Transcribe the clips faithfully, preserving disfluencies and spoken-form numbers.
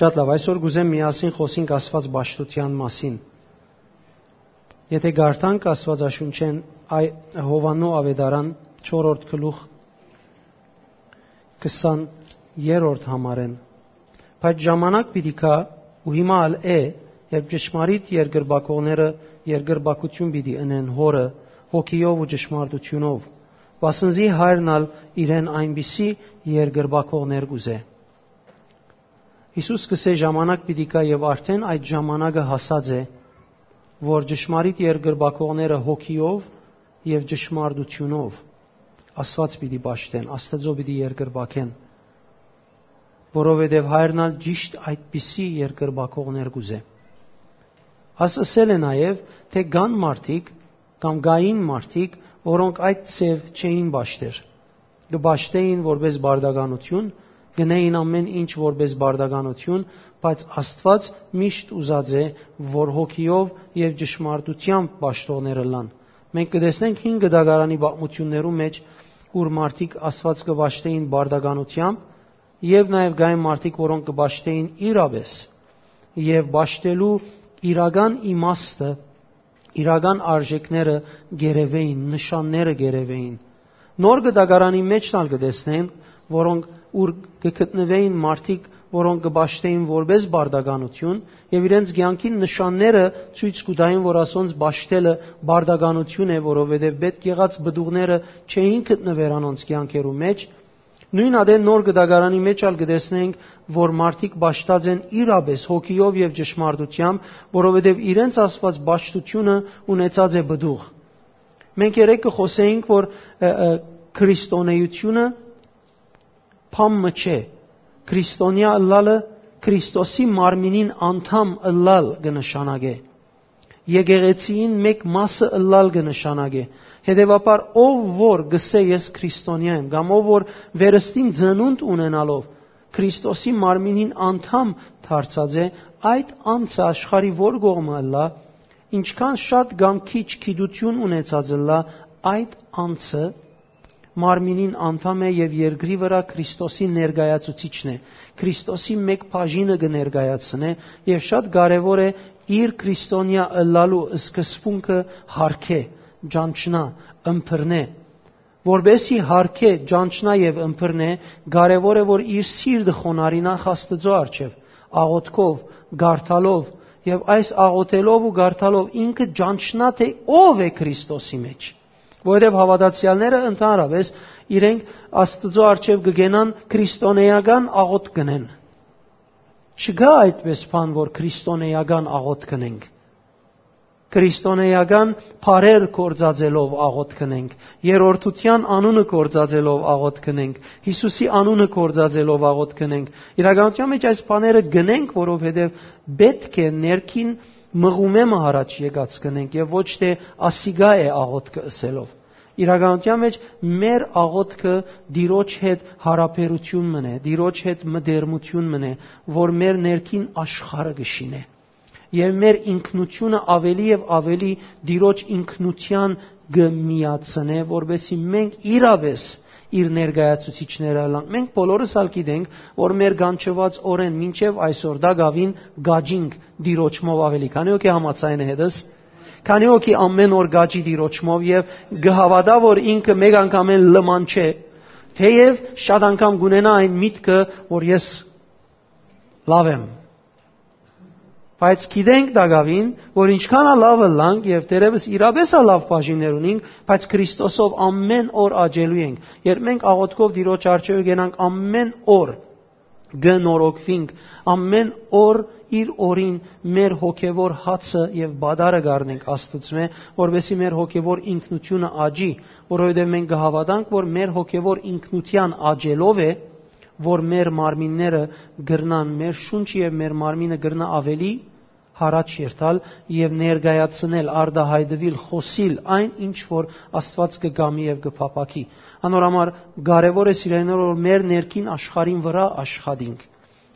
Շատ լավ, այսօր կուզեմ միասին խօսենք Աստուած պաշտութեան մասին։ Եթէ կարդանք Աստուածաշունչէն, այ Յովհաննու Աւետարան, չորրորդ գլուխ, քսաներորդ համարէն։ Բայց ժամանակ պիտի գայ, ու հիմա ալ է, երբ ճշմարիտ երկրպագողները երկրպագութիւն պիտի ընեն Հօրը, հոգիով ու ճշմարտութիւնով, վասն զի Հայրն ալ իրեն այնպիսի երկրպագողներ կ'ուզէ։ Յիսուս կ'ըսէ. «Ժամանակ պիտի գայ եւ արդէն այդ ժամանակը հասած է, որ ճշմարիտ երկրպագողները հոգիով եւ ճշմարտութիւնով Աստուած պիտի պաշտեն, Աստուծոյ պիտի երկրպագեն, որովհետեւ Հայրն ալ ճիշդ այդպիսի երկրպագողներ կ'ուզէ»։ Աս ըսել է նաեւ, թէ կան մարդիկ կամ կային մարդիկ, որոնք այդ ձեւ չէին պաշտեր։ Կը պաշտէին որպէս բարդականութիւն, գնային ամէն ինչ որպէս բարդականութիւն, բայց Աստուած միշտ ուզած է, որ հոգիով եւ ճշմարտութեամբ պաշտողներ ըլլան։ Մենք կը տեսնենք հին գդակարանի պատմութիւններու մէջ, ուր մարդիկ Աստուած կը պաշտէին բարդականութեամբ, եւ նաեւ կային մարդիկ, որոնք կը պաշտէին իրապէս, եւ պաշտելու իրական իմաստը, իրական արժեքները գերեւեին, նշանները գերեւեին։ Նոր գդակարանի մէջ ալ կը տեսնեն, որոնք ուր կը գտնուէին մարդիկ, որոնք կը պաշտէին որպէս բարդականութիւն, եւ իրենց կեանքին նշանները ցոյց կու տային, որ ասոնց պաշտելը բարդականութիւն է, որովհետեւ պէտք եղած պտուղները չէին գտնուեր անոնց կեանքերու մէջ։ Նոյն ատեն նոր գդակարանի մէջ ալ կը տեսնենք, որ մարդիկ պաշտած են իրապէս հոգիով եւ ճշմարտութեամբ, որովհետեւ իրենց Աստուած պաշտութիւնը ունեցած է պտուղ։ Մենք երեկ կը խօսէինք, որ, ը, ը, քրիստոնեությունը բան մը չէ։ Քրիստոնեայ ըլլալը Քրիստոսի մարմինին անդամ ըլլալ կը նշանակէ։ Եկեղեցիին մէկ մասը ըլլալ կը նշանակէ։ Հետեւաբար, ով որ կ'ըսէ. «Ես քրիստոնեայ եմ», կամ ով որ վերստին ծնունդ ունենալով Քրիստոսի մարմինին անդամ դարձած է, այդ անձը, աշխարհի որ կողմը ըլլայ, ինչքան շատ կամ քիչ գիտութիւն ունեցած ըլլայ, այդ անձը մարմինին անդամ է եւ երկրի վրայ Քրիստոսի ներկայացուցիչն է, Քրիստոսի մէկ բաժինը կը ներկայացնէ, եւ շատ կարեւոր է իր քրիստոնեայ ըլլալու սկզբունքը յարգէ, ճանչնայ, ըմբռնէ։ Որպէսզի յարգէ, ճանչնայ եւ ըմբռնէ, կարեւոր է, որ իր սիրտը խոնարհի նախ Աստուծոյ առջեւ, աղօթքով, կարդալով, եւ այս աղօթելով ու կարդալով ինքը ճանչնայ, թէ ով է Քրիստոսի մէջ։ Որովհետեւ հաւատացեալները ընդհանրապէս իրենք Աստուծոյ առջեւ կը կենան քրիստոնեական աղօթք կ'ընեն։ Չկայ այդպէս բան, որ քրիստոնեական աղօթք կ'ընենք։ Քրիստոնեական բառեր գործածելով աղօթք կ'ընենք, երրորդութեան անունը գործածելով աղօթք կ'ընենք, Յիսուսի անունը գործածելով աղօթք կ'ընենք։ Իրականութեան մէջ այս բաները կ'ընենք, որովհետեւ պէտք է ներքին մղումէ մը յառաջ եկած կ'ընենք եւ ոչ թէ ասիկա է աղօթքը ըսելով։ Իրականութեան մէջ մեր աղօթքը Տիրոջ հետ յարաբերութիւն մըն է, Տիրոջ հետ մտերմութիւն մըն է, որ մեր ներքին աշխարհը կը շինէ։ Եւ մեր ինքնութիւնը աւելի եւ աւելի Տիրոջ ինքնութեան կը միացնէ, որպէսզի մենք իրապէս իր ներկայացուցիչները ըլլանք։ Մենք բոլորս ալ գիտենք, որ մեր կանչուած օրէն մինչեւ այսօր տակաւին կաճինք Տիրոջմով աւելի։ Քանի՞ հոգի համաձայն է հետս։ Քանի՞ հոգի ամէն օր կաճի Տիրոջմով եւ կը հաւատայ, որ ինքը մէկ անգամէն լման չէ, թէեւ շատ անգամ կ'ունենայ այն միտքը, որ ես լաւ եմ։ Բայց գիտենք տակաւին, որ ինչքան ալ լաւ ըլլանք եւ թերեւս իրապէս ալ լաւ բաժիններ ունինք, բայց Քրիստոսով ամէն օր աճելու ենք։ Երբ մենք աղօթքով Տիրոջ առջեւ կենանք, ամէն օր կը նորոգուինք, ամէն օր իր օրին մեր հոգեվոր հացը եւ պատարը կ'առնենք Աստուծմէ, որպէսզի մեր հոգեվոր ինքնութիւնը աճի, որովհետեւ մենք կը հաւատանք, որ մեր հոգեվոր ինքնութեան աճելով է, որ մեր մարմինները կրնան, մեր շունչը եւ մեր մարմինը կրնա աւելի յառաջ երթալ եւ ներկայացնել, արտայայտուիլ, խօսիլ այն, ինչ որ Աստուած կը կամի եւ կը փափաքի։ Անոր համար կարեւոր է, սիրելիներ, որ մեր ներքին աշխարհին վրայ աշխատինք,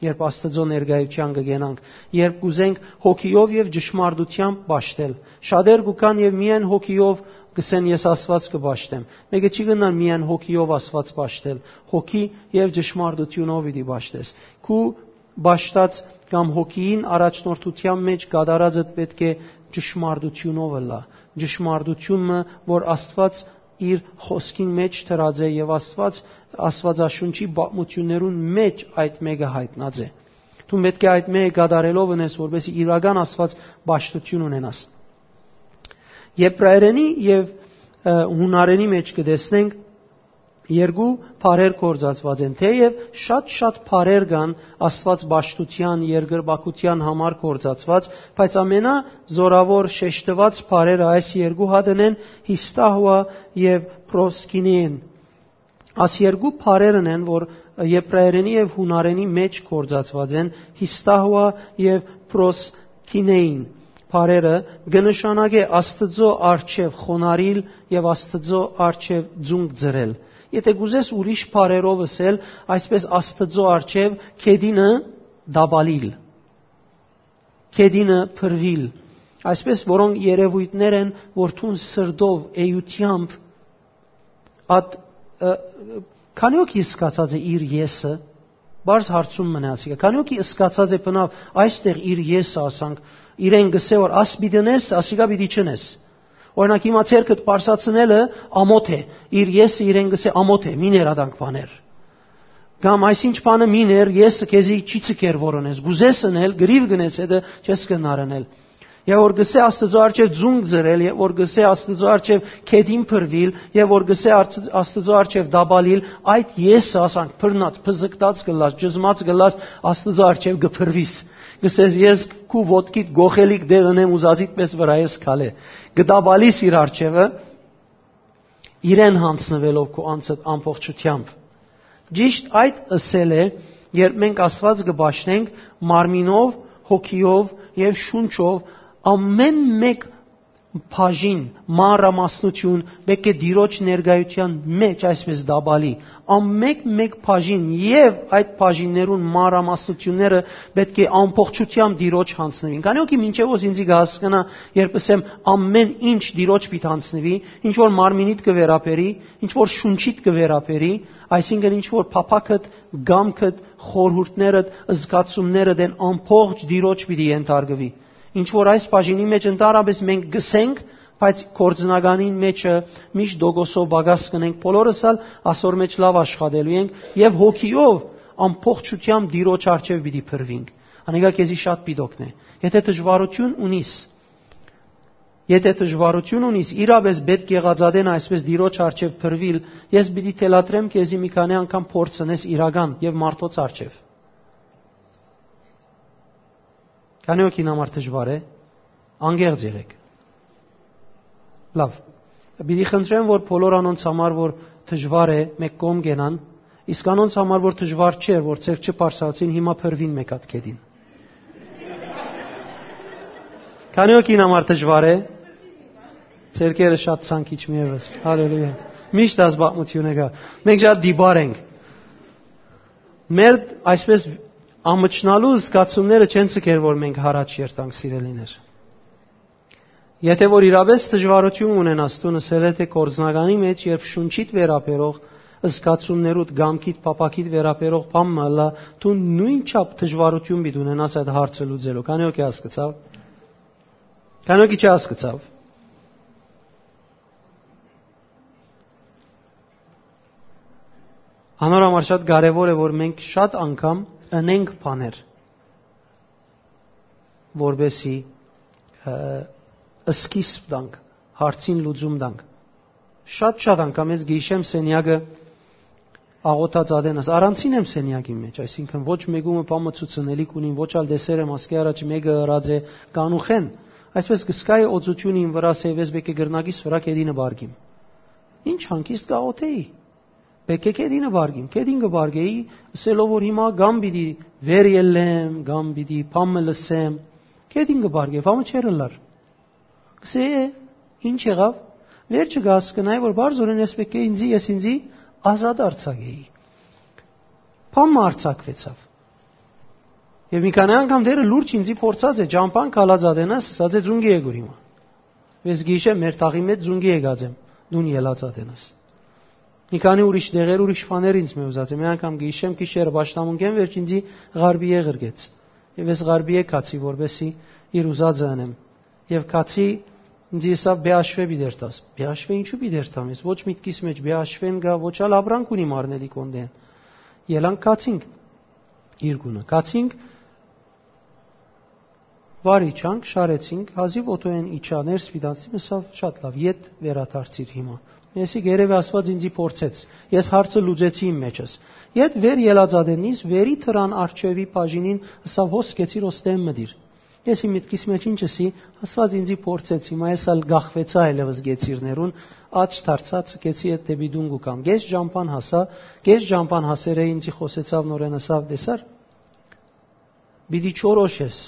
երբ Աստուծոյ ներկայութեան կը կենանք, երբ կ'ուզենք հոգիով եւ ճշմարտութեամբ պաշտել։ Շատեր կու գան եւ միայն հոգիով կ'ըսեն. «Ես Աստուած կը պաշտեմ»։ Մէկը չի կրնար միայն հոգիով Աստուած պաշտել, հոգի եւ ճշմարտութիւնով պիտի պաշտես։ Քու պաշտած կամ հոգիին առաջնորդութեան մէջ կատարածդ պէտք է ճշմարտութիւնով ըլլայ։ Ճշմարտութիւնը, որ Աստուած իր խօսքին մէջ դրած է եւ Աստուած, Աստուածաշունչի պատմութիւններուն մէջ այդ մէկը յայտնած է։ Դուն պէտք է այդ մէկը կատարելով ընես, որպեսզի իրական Աստուած պաշտութիւն ունենաս։ Եբրայերենի եւ, ը, յունարենի մէջ կը տեսնենք, երկու բառեր գործածուած են, թէեւ շատ-շատ բառեր կան Աստուած պաշտութեան, երկրպագութեան համար գործածուած, բայց ամենազօրաւոր շեշտուած բառերը այս երկու հատն են՝ հիստահուա եւ պրոսկինեն։ Աս երկու բառերն են, որ եբրայերենի եւ յունարենի մէջ գործածուած են, հիստահուա եւ պրոսկինեին բառերը, կը նշանակէ Աստուծոյ առջեւ խոնարհիլ եւ Աստուծոյ առջեւ ձունկ ծռել։ Եթէ կ'ուզես ուրիշ բառերով ըսել, այսպէս Աստուծոյ առջեւ գետինը դաբալիլ, գետինը փռուիլ, այսպէս որոնք երեւոյթներ են, որ դուն սրտով, էութեամբ, ատ, ը, քանի՞ օքի սկացած է իր եսը, բարձ հարցում մնա ասիկա, քանի՞ օքի սկացած է բնավ այստեղ իր եսը, ասանք, իրեն գսե որ «Աս պիտի ընես, ասիկա պիտի չընես»։ Օրինակ, հիմա ձեռքդ պարսացնելը ամոթ է, իր եսը իրեն գսե՝ «Ամոթ է, մի ներ ադանք բաներ»։ Կամ այսինչ բանը մի ներ, եսը քեզի չի ցկեր որ ընես, գուզես ընել, գրիվ գնես, հետը չես կնար ընել։ Եւ որ գսե Աստուծոյ առջեւ ձունկ ծռել, եւ որ գսե Աստուծոյ առջեւ գետին փռուիլ, եւ որ գսե արդ-, Աստուծոյ առջեւ դաբալիլ, այդ եսը, ասանք, բռնած, փզկտած կ'ըլլաս, ճզմած կ'ըլլաս, Աստուծոյ առջեւ կը փռուիս։ Գսես, ես քու ոտքիդ գոխելիք դեղ ընեմ, ուզածիդ պէս վրայ ես քալե։ Կը դաբալիս իր առջեւը, իրեն յանձնուելով քու անձդ ամբողջութեամբ։ Ճիշտ այդ ըսել է, երբ մենք Աստուած կը պաշտենք մարմինով, հոգիով եւ շունչով, ամէն մէկ բաժին, մանրամասնություն պէտք է Տիրոջ ներկայութեան մէջ այսպէս դաբալի, ամէն մէկ բաժին եւ այդ բաժիններուն մանրամասնությունները պէտք է ամբողջութեամբ Տիրոջ յանձնուին։ Քանի՞ օքի մինչեւ ոս ինձի կը հասկնայ, երբ ըսեմ՝ «Ամէն ինչ Տիրոջ պիտի յանձնուի», ինչ որ մարմինիդ կը վերաբերի, ինչ որ շունչիդ կը վերաբերի, այսինքն՝ ինչ որ փափաքդ, կամքդ, խորհուրդներդ, զգացումներդ են, ամբողջ Տիրոջ պիտի ենթարկուի։ Ինչ որ այս բաժինի մէջ ընդհանրապես մենք գսենք, բայց գործնականին մէջը միշտ տոկոսով պակաս կ'ընենք, բոլորս ալ ասոր մէջ լաւ աշխատելու ենք եւ հոգիով ամբողջութեամբ Տիրոջ առջեւ պիտի փռուինք։ Անիկա քեզի շատ պիտի օգնէ։ Եթէ դժուարութիւն ունիս, եթէ դժուարութիւն ունիս, իրապէս պէտք եղած ատեն այսպէս Տիրոջ առջեւ փռուիլ, ես պիտի թելադրեմ քեզի մի քանի անգամ փորձ ընես իրական եւ մարդոց առջեւ։ Քանի՞ օքին համար դժուար է, անկեղծ եղէք։ Լաւ։ Պիտի խնդրեմ, որ բոլոր անոնց համար, որ դժուար է, մէկ կողմ կենան, իսկ անոնց համար, որ դժուար չէր, որ ձեռք չբարձրացին, հիմա փռուին մէկ հատ գետին։ Քանի՞ օքին համար դժուար է, ձեռքերը շատ ցանկ իջին ևս։ Հալելույա։ Միշտ այս պատմությունը կայ։ Մենք շատ դիպար ենք։ Մեր այսպես ամչնալու զգացումները չեն ցկեր, որ մենք յառաջ երթանք, սիրելիներ։ Եթէ որ իրապէս դժուարութիւն ունենաս, դուն ըսել է, թէ գործնականի մէջ, երբ շունչիդ վերաբերող զգացումներուդ, կամքիդ, փափաքիդ վերաբերող բան մը ըլլայ, դու նոյնչափ դժուարութիւն պիտի ունենաս այդ հարցը լուծելու։ Քանի՞ օքի հասկցաւ։ Քանի՞ օքի չի հասկցաւ։ Անոր համար շատ կարեւոր է, որ մենք շատ անգամ ընենք բաներ, որպեսի, ը, սկիզբ տանք, հարցին լուծում տանք։ Շատ-շատ անգամ ես գիշեմ սենյակը աղոթած ատենս, առանձին եմ սենյակի մեջ, այսինքն ոչ մեկումը բան մը ցուցնելիք ունին, ոչ ալ տեսեր եմ ասկի առաջ մեկը ըրած է կանուխեն, այսպես կսկայի օծությունին վրաս է, ես պէտք է կրնակիս վրա կետինը բարգիմ։ Ինչ հանգիստ կաղոթեի։ Պէտք է կետինը բարգիմ, կետին կը բարգեի, ըսելով որ հիմա կամ պիտի վեր ելլեմ, կամ պիտի բան մը լսեմ, կետին կը բարգեի, բան մը չէր ըլլար։ Կսե, «Է, ինչ եղաւ»։ Վերջը կհասկնայի, որ բարձորեն ես պէտք է ինձի, ես ինձի ազատ արձակեի։ Բան մը արձակվեցաւ։ Եւ մի քանի անգամ դերը լուրջ ինձի փորձած է, ճամփան քալած ատենաս, ասած է, «Ձունկի եկուր հիմա»։ Ես գիշեմ մեր թաղի մեջ ձունկի եկած եմ, դուն ելած ատենաս։ Մի քանի ուրիշ դեղեր, ուրիշ բաներ ինձ մը ուզած է։ Մի անգամ կը յիշեմ, գիշերը պաշտամունքէն վերջ ինձի ղարբիե ղրկեց։ Եւ ես ղարբիե կացի, որպեսզի իր ուզածը ընեմ։ Եւ կացի, ինձ ըսաւ, «Բեաշվէ պիտի երթաս»։ «Բեաշվէ ինչու պիտի երթամ ես։ Ոչ միտքիս մէջ Բեաշվէն կայ, ոչ ալ ապրանք ունի մարմնելի կոնդեն»։ Ելանք կացինք իր գունը։ Կացինք, վար իջանք, շարեցինք, հազիւ օթոյէն իջա, ներս պիտի անցնի, ըսաւ, «Շատ լավ, ետ վերադարձիր հիմա»։ Ես երեւի Աստուած ինձի փորձեց։ Ես հարցը լուծեցի իմ մեջս։ Ետ վեր ելած ատեննից, վերի թրան արջեւի բաժինին ըսաւ, «Հոս կեցիր, ոստեմ մտիր»։ Ես իմ միտքիս մեջ ինչ ըսի, Աստուած ինձի փորձեց, հիմա ես ալ գախվեցայ այլեւս գեցիրներուն, աջ դարձած կեցի, ետ դէպի տուն կու կամ։ Կես ճամփան հասա, կես ճամփան հասերէ ինձի խօսեցաւ նորէն, ըսաւ, «Տեսար, պիտի չորոշես,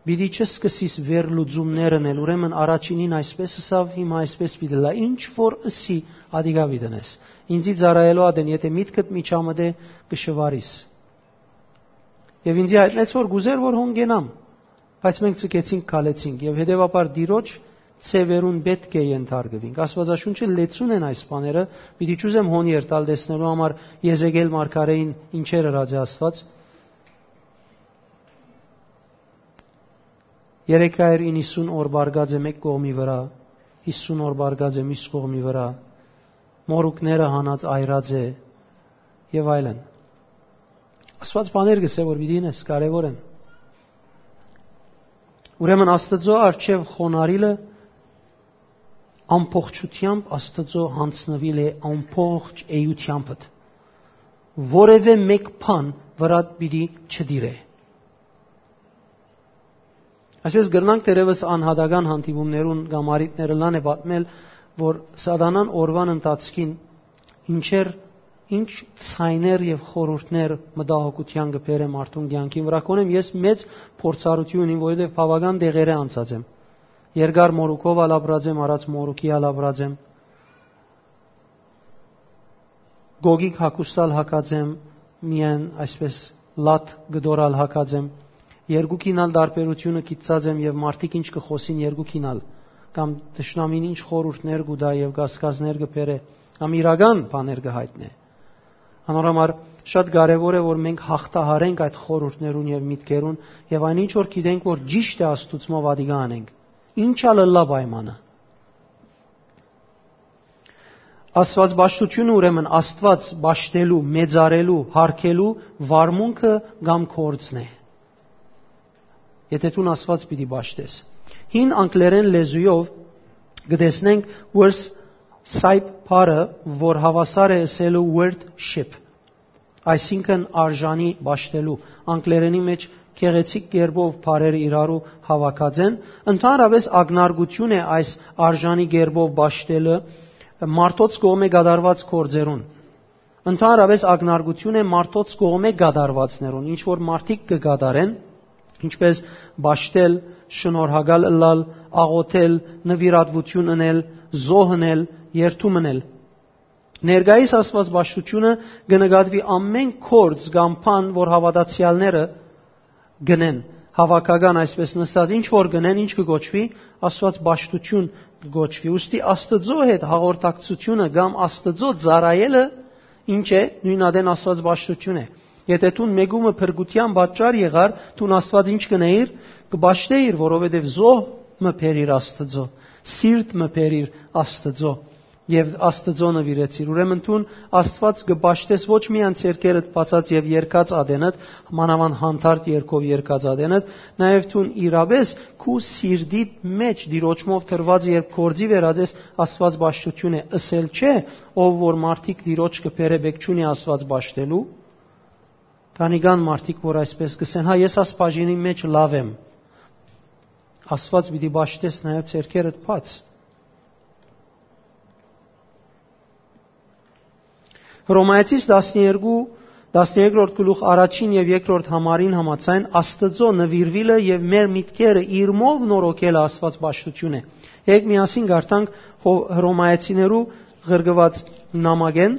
պիտի չսկսիս վերլուծումներ ընել, ուրեմն առաջինին այսպես ըսաւ, հիմա այսպես պիտի լա, ինչ որ ըսի, ադիկա պիտի ընես։ Ինձի ծառայելու ատեն, եթէ միտքդ միջամտէ, կը շվարիս»։ Եւ ինձի յայտնեց, որ կուզեր, որ հոն գնամ, բայց մենք ձգեցինք, քալեցինք, եւ հետեւաբար Տիրոջ ձեւերուն պէտք է ենթարկուինք։ Աստուածաշունչը լեցուն են այս բաները, պիտի չուզեմ հոն երթալ տեսնելու համար Եզեկել մարգարէին ինչեր ըրած է Աստուած։ Երեկ այր իննսուն օր բարգած է մէկ կողմի վրայ, հիսուն օր բարգած է մյուս կողմի վրայ, մորուքները հանած այրած է, եւ այլն։ Աստուած բաներ կ'ըսէ, որ պիտի ինես, կարեւոր են։ Ուրեմն Աստուծոյ առջեւ խոնարհիլը ամբողջութեամբ Աստուծոյ յանձնուիլ է ամբողջ էութեամբդ, որեւէ մէկ բան վրադ պիտի չտիրէ։ Այսպես կրնանք թերեւս անհատական հանդիպումներուն կամ առիթներ ըլլան է պատմել, որ Սատանան օրուան ընթացքին ինչեր, ինչ ձայներ եւ խորհուրդներ մտահոգութեան կը բերէ մարդուն կեանքին վրայ։ Կոնեմ ես մեծ փորձառութիւն ունիմ, որովհետեւ բաւական դեղերէ անցած եմ։ Երկար մորուքով ալ ապրած եմ, առած մորուքի ալ ապրած եմ։ Գոգիկ հագուստ ալ հագած եմ, միայն այսպես լատ կտոր ալ հագած եմ։ Երկուքին ալ տարբերութիւնը գիտցած եմ եւ մարդիկ ինչ կը խօսին երկուքին ալ, կամ թշնամին ինչ խորհուրդներ կու տայ եւ կասկածներ կը բերէ, կամ իրական բաներ կը յայտնէ։ Անոր համար շատ կարեւոր է, որ մենք հաղթահարենք այդ խորհուրդներուն եւ միտքերուն եւ այն ինչ որ գիտենք, որ ճիշդ է Աստուծմով ադիկա անենք։ Ինչ ալ ըլլայ պայմանը։ Աստուածպաշտությունը, ուրեմն Աստուած պաշտելու, մեծարելու, յարգելու վարմունքը կամ գործն է։ Եթէ դուն Աստուած պիտի պաշտես։ Հին անգլերեն լեզուով կը տեսնենք worth ship բառը, որ հաւասար է ըսելու worth ship, այսինքն արժանի պաշտելու, անգլերենի մեջ գեղեցիկ կերպով բառերը իրարու հաւաքած են, ընդհանրապես ակնարկություն է այս արժանի կերպով պաշտելը մարդոց կողմէ կատարուած գործերուն։ Ընդհանրապես ակնարկություն է մարդոց կողմէ կատարուածներուն, ինչ որ մարդիկ կը կատարեն, ինչպես պաշտել, շնորհակալ ըլլալ, աղոթել, նուիրատուություն ընել, զոհ ընել, երդում ընել։ Ներկայիս Աստուածպաշտությունը կը նկատուի ամէն գործ կամ բան, որ հաւատացեալները գնեն, հաւաքական այսպես նստած, ինչ որ գնեն, ինչ կը կոչուի, Աստուածպաշտություն կը կոչուի։ Ուստի Աստուծոյ հետ հաղորդակցությունը կամ Աստուծոյ ծառայելը ինչ է, նոյն ատեն Աստուածպաշտություն է։ Եթէ դուն մեկումը փրկութեան պատճառ եղար, դուն Աստուած ինչ կ'ընէիր, կը պաշտէիր, որովհետեւ զոհ մը բերիր Աստուծոյ, սիրտ մը բերիր Աստուծոյ, եւ Աստուծոյ նուիրեցիր։ Ուրեմն դուն Աստուած կը պաշտես ոչ միայն ձեռքերդ բացած եւ երկած ատենդ, մանաւանդ հանդարտ երկով երկած ատենդ, նաեւ դուն իրապէս քու սիրտիդ մեջ Տիրոջմով դրուած, երբ գործի վերածես, Աստուածպաշտություն է, ըսել չէ, ով որ մարդիկ Տիրոջ կը բերէ, պէք չունի Աստուած պաշտելու։ Քանի կան մարդիկ, որ այսպես կ'ըսեն, «Հա, ես աս բաժինի մեջ լաւ եմ»։ Աստուած պիտի պաշտես նաեւ ձեռքերդ բաց։ Հռոմայեցիս տասներկու, տասներկրորդ գլուխ առաջին եւ երկրորդ համարին համաձայն Աստուծոյ նուիրուիլը եւ մեր միտքերը իրմով նորոգելը Աստուածպաշտություն է։ Եկեք միասին կարդանք Հո-, Հռոմայեցիներու ղրկուած նամակէն,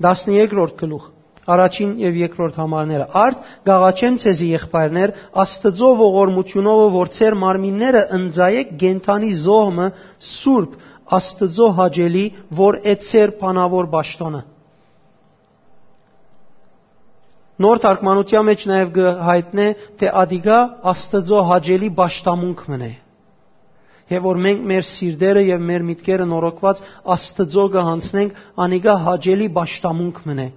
տասներկրորդ գլուխ, Առաջին եւ երկրորդ համարները։ Արդ կ'աղաչեմ ձեզի, եղբայրներ, Աստուծոյ ողորմութիւնովը, որ ձեր մարմինները ընծայէք կենդանի զոհ մը, սուրբ, Աստուծոյ հաճելի, որ է ձեր բանաւոր պաշտօնը։ Նոր թարգմանութեան մէջ նաեւ կը յայտնէ, թէ ատիկա Աստուծոյ հաճելի պաշտամունք մըն է։ Եւ որ մենք մեր սիրտերը եւ մեր միտքերը նորոգուած Աստուծոյ կը յանձնենք, անիկա հաճելի պաշտամունք մըն է։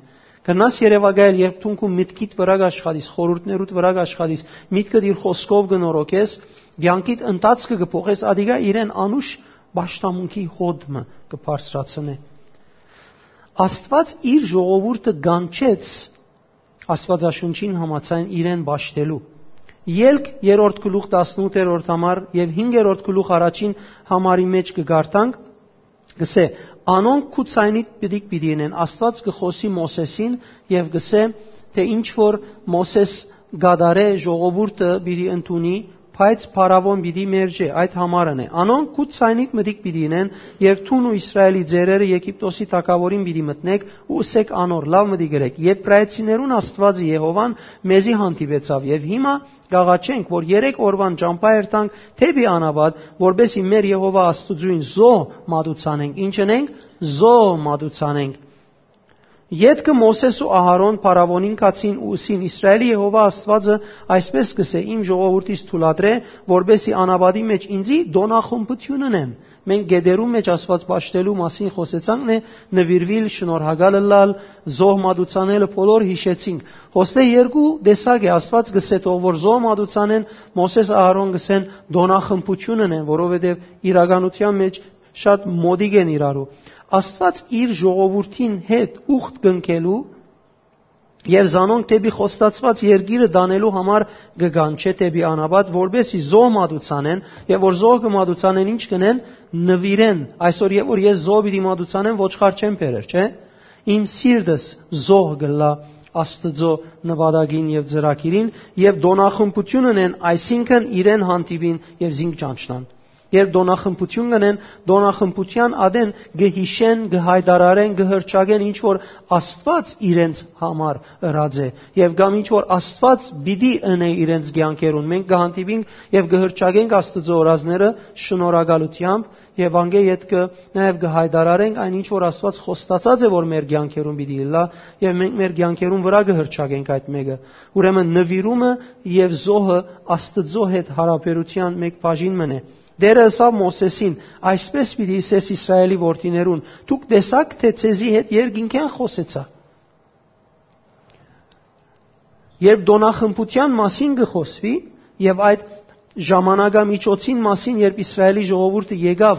Կրնաս երեւակայել, երբ դուն քու միտքիդ վրայ կ'աշխատիս, խորհուրդներուդ վրայ կ'աշխատիս, միտքդ իր խօսքով կը նորոգես, կեանքիդ ընթացքը կը փոխես, ատիկա իրեն անուշ պաշտամունքի հոտ մը կը բարձրացնէ։ Աստուած իր ժողովուրդը կանչեց Աստուածաշունչին համաձայն իրեն պաշտելու։ Ելք երրորդ գլուխ տասնութերորդ համար եւ հինգերորդ գլուխ առաջին համարի մէջ կը կարդանք, կսէ. «Անոնք քու ձայնիդ պիտի, պիտի ընեն»։ Աստուած կը խօսի Մովսէսին եւ կսէ, թէ ինչ որ Մովսէս կատարէ, ժողովուրդը պիտի ընդունի, բայց փարաւոն պիտի մերժէ, այդ համարն է։ «Անոնք քու ձայնիդ մտիկ պիտի ընեն եւ դուն ու Իսրայէլի ծերերը Եգիպտոսի թագաւորին պիտի մտնեք ու ըսեք անոր. "Լաւ մտիկ ըրեք, Եբրայեցիներուն Աստուածը Եհովան մեզի հանդիպեցաւ եւ հիմա կ'աղաչենք, որ երեք օրուան ճամբայ երթանք դէպի անապատ, որպէս զի մեր Եհովա Աստուծոյն զոհ մատուցանենք"։ Ի՞նչ ընենք։ Զոհ մատուցանենք։ Ետքը Մովսէս ու Ահարոն փարաւոնին գացին ու ըսին. "Իսրայէլի Եհովա Աստուածը այսպէս կ'ըսէ. Իմ ժողովուրդիս թուլատրէ, որպէս զի անապատի մէջ ինծի տօնախմբութիւն ընեն"։ Մենք գետերու մէջ Աստուած պաշտելու մասին խօսեցանք, նե նուիրուիլ, շնորհակալ ըլլալ, զոհ մատուցանելը բոլոր յիշեցինք։ Հոստե երկու տեսակ է, Աստուած կ'ըսէ. "Թող որ զոհ մատուցանեն", Մովսէս, Ահարոն կ'ըսեն. "Տօնախմբութիւն ընեն", որովհետեւ իրականութեան մէջ շատ մոտիկ են իրարու։ Աստուած իր ժողովուրդին հետ ուխտ կնքելու եւ զանոնք դէպի խոստացուած երկիրը տանելու համար կը կանչէ դէպի անապատ, որպէս զի զոհ մատուցանեն, եւ որ զոհ կը մատուցանեն, ի՞նչ կ'ընեն, նուիրեն։ Այսօր, երբ որ ես զոհ պիտի մատուցանեմ, ոչխար չեմ բերեր, չէ՞։ Իմ սիրտս զոհ կ'ըլլայ Աստուծոյ նպատակին եւ ծրագիրին, եւ տօնախմբութիւն ընեն, այսինքն իրեն հանդիպին եւ զինք ճանչնան։ Երբ տօնախմբութիւն կ'ընեն, տօնախմբութեան ատեն կը յիշեն, կը յայտարարեն, կը հռչակեն, ինչ որ Աստուած իրենց համար ըրած է, եւ կամ ինչ որ Աստուած պիտի ընէ իրենց կեանքերուն։ Մենք կը հանդիպինք եւ կը հռչակենք Աստուծոյ օրազները շնորհակալութեամբ, եւ անկէ ետքը նաեւ կը յայտարարենք այն, ինչ որ Աստուած խոստացած է, որ մեր կեանքերուն պիտի ըլլայ, եւ մենք մեր կեանքերուն վրայ կը հռչակենք այդ մէկը։ Ուրեմն նուիրումը եւ զոհը Աստուծոյ հետ յարաբերութեան մէկ բաժին մըն է։ Տէրը ըսաւ Մովսէսին. "Այսպէս պիտի ըսես Իսրայէլի որդիներուն. դուք տեսաք թէ ձեզի հետ երկինքէն խօսեցայ"։ Երբ տօնախմբութեան մասին կը խօսուի եւ այդ ժամանակամիջոցին մասին, երբ Իսրայէլի ժողովուրդը եկաւ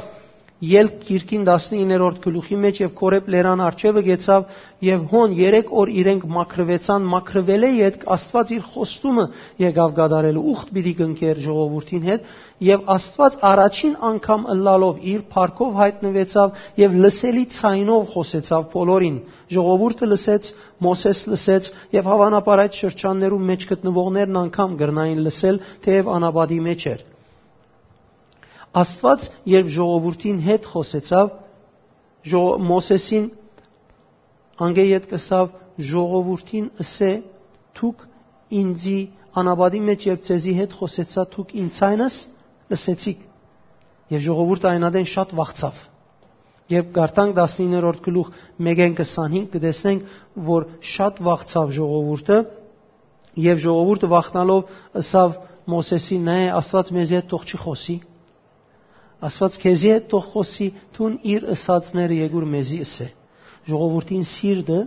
Ելք գիրքին տասնիններորդ գլուխի մէջ եւ Քորեբ լերան առջեւը գեցաւ, եւ հոն երեք օր իրենք մաքրուեցան, մաքրուելէ ետք Աստուած իր խոստումը եկաւ կատարելու, ուխտ պիտի կնքեր ժողովուրդին հետ, եւ Աստուած առաջին անգամ ըլլալով իր փառքով յայտնուեցաւ եւ լսելի ձայնով խօսեցաւ բոլորին։ Ժողովուրդը լսեց, Մովսէս լսեց, եւ հաւանաբար այդ շրջաններու մէջ գտնուողներն անգամ կրնային լսել, թէեւ անապատի մէջ էր։ Աստուած երբ ժողովուրդին հետ խօսեցաւ, ժո-, Մովսէսին անկէ ետք ըսաւ. "Ժողովուրդին ըսէ, դուք ինծի անապատի մէջ երբ ձեզի հետ խօսեցայ, դուք ինձ ցայնս լսեցիք"։ Եւ ժողովուրդը այն ատեն շատ վախցաւ։ Երբ կարդանք տասնիններորդ գլուխ մէկէն քսանհինգ, կը տեսնենք, որ շատ վախցաւ ժողովուրդը, եւ ժողովուրդը վախնալով ըսաւ Մովսէսին. "Նայ, Աստուած մեզի հետ թող չի խօսի"։ Աստուած քեզի հետ թող խօսի, դուն իր ըսածները եկուր մեզի ըսէ։ Ժողովուրդին սիրտը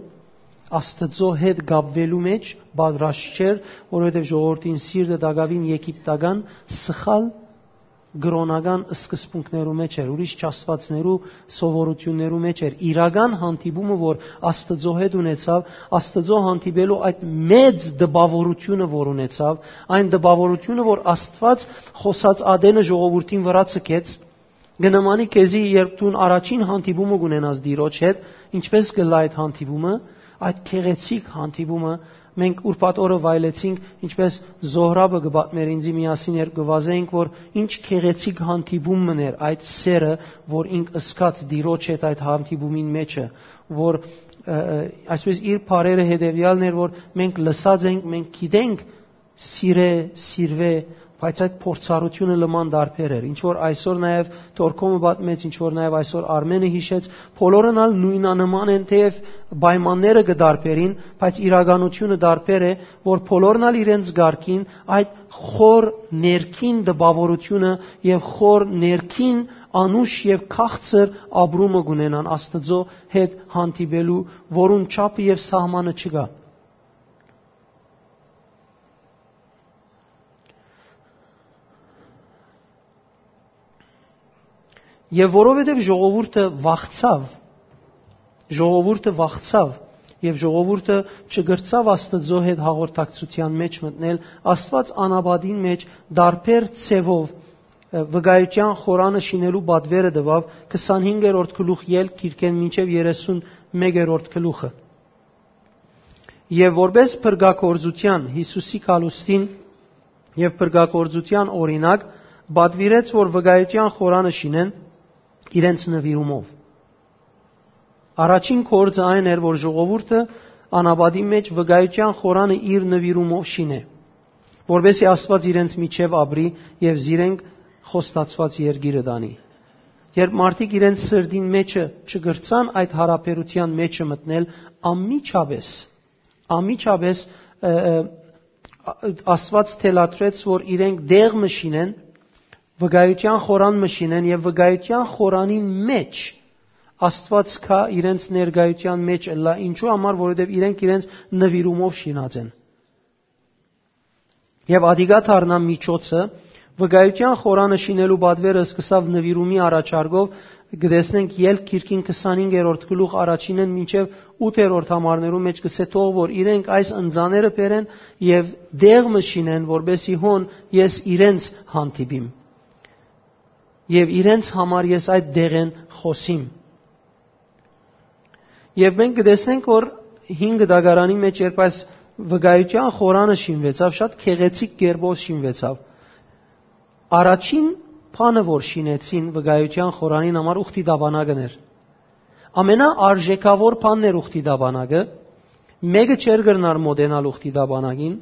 Աստծո հետ կապվելու մեջ պատրաստ չէր, որովհետև ժողովուրդին սիրտը տակաւին եգիպտական սխալ կրօնական սկզբունքներու մեջ էր, ուրիշ չաստուածներու սովորություններու մեջ էր։ Իրական հանդիպումը, որ Աստծո հետ ունեցավ, Աստծո հանդիպելու այդ մեծ տպավորությունը, որ ունեցավ, այն տպավորությունը, որ Աստված խօսած ատենը ժողովուրդին վրա ցկեց, կը նմանի քեզի, երբ դուն առաջին հանդիպումը կունենաս Տիրոջ հետ, ինչպես կ'ըլլայ այդ հանդիպումը, այդ գեղեցիկ հանդիպումը, մենք ուրբաթ օրը վայելեցինք, ինչպես Զոհրաբը կը պատմէր ինձի, միասին երբ կը վազէինք, որ ինչ գեղեցիկ հանդիպում մըն էր այդ սերը, որ ինք ըսկաց Տիրոջ հետ այդ հանդիպումին մեջը, որ ը, ը, այսպես իր բարերը հետեւեալն էր, որ մենք լսած ենք, մենք գիտենք, սիրե, սիրվե, բայց այդ փորձառությունը լման դարբեր էր։ Ինչ որ այսօր նաև Թորքոմը պատմեց, ինչ որ նաև այսօր Արմենը հիշեց, բոլորն ալ նոյնանման են, թեև պայմանները կը դարբերին, բայց իրականությունը դարբեր է, որ բոլորն ալ իրենց գարկին այդ խոր ներքին տպաւորությունը եւ խոր ներքին անուշ եւ քաղցր ապրումը կունենան Աստծո հետ հանդիպելու, որուն չափը եւ սահմանը չկայ։ Եւ որովհետեւ ժողովուրդը վախցաւ, ժողովուրդը վախցաւ եւ ժողովուրդը չկրցաւ Աստծո հետ հաղորդակցութեան մէջ մտնել, Աստուած անապատին մէջ դարբեր ձեւով, ը, վկայութեան խորանը շինելու պատվերը տուաւ քսանհինգերորդ գլուխ ելք գիրքէն մինչեւ երեսունմեկերորդ գլուխը։ Եւ որպես փրկագործութեան, Յիսուսի գալուստին եւ փրկագործութեան օրինակ, պատուիրեց, որ վկայութեան խորանը շինեն իրենց նուիրումով։ Առաջին գործը այն էր, որ ժողովուրդը անապատի մէջ վկայութեան խորանը իր նուիրումով շինէ, որպեսզի Աստուած իրենց միջեւ ապրի եւ զիրենք խոստացուած երկիրը տանի։ Երբ մարդիկ իրենց սրտին մեջը չկրցան այդ յարաբերութեան մեջը մտնել, անմիջապէս, անմիջապէս, ը, ը, Աստուած թելադրեց, որ իրենք դեղ մը շինեն, վկայութեան խորան մը շինեն եւ վկայութեան խորանին մէջ Աստուած կայ իրենց ներկայութեան մէջ ըլլայ։ Ինչու համար, որովհետեւ իրենք իրենց նուիրումով շինած են։ Եւ ադիկա դառնայ միջոցը, վկայութեան խորանը շինելու պատվերը սկսաւ նուիրումի առաջարկով, կը տեսնենք Ելք գիրքին քսանհինգերորդ գլուխ առաջինէն մինչեւ ութերորդ համարներու մէջ կսէ թող որ իրենք այս ընծաները բերեն եւ դեղ մը շինեն, որպեսզի հոն ես իրենց հանդիպիմ եւ իրենց համար ես այդ դեղեն խօսիմ։ Եւ մենք կը տեսնենք, որ հինգ դագարանի մէջ, երբ այս վկայութեան խորանը շինուեցաւ, շատ գեղեցիկ կերպով շինուեցաւ։ Առաջին բանը, որ շինեցին վկայութեան խորանին համար, ուխտի դաբանագն էր։ Ամենաարժեքաւոր բանն էր ուխտի դաբանագը, մէկը չէր կրնար մոտենալ ուխտի դաբանագին,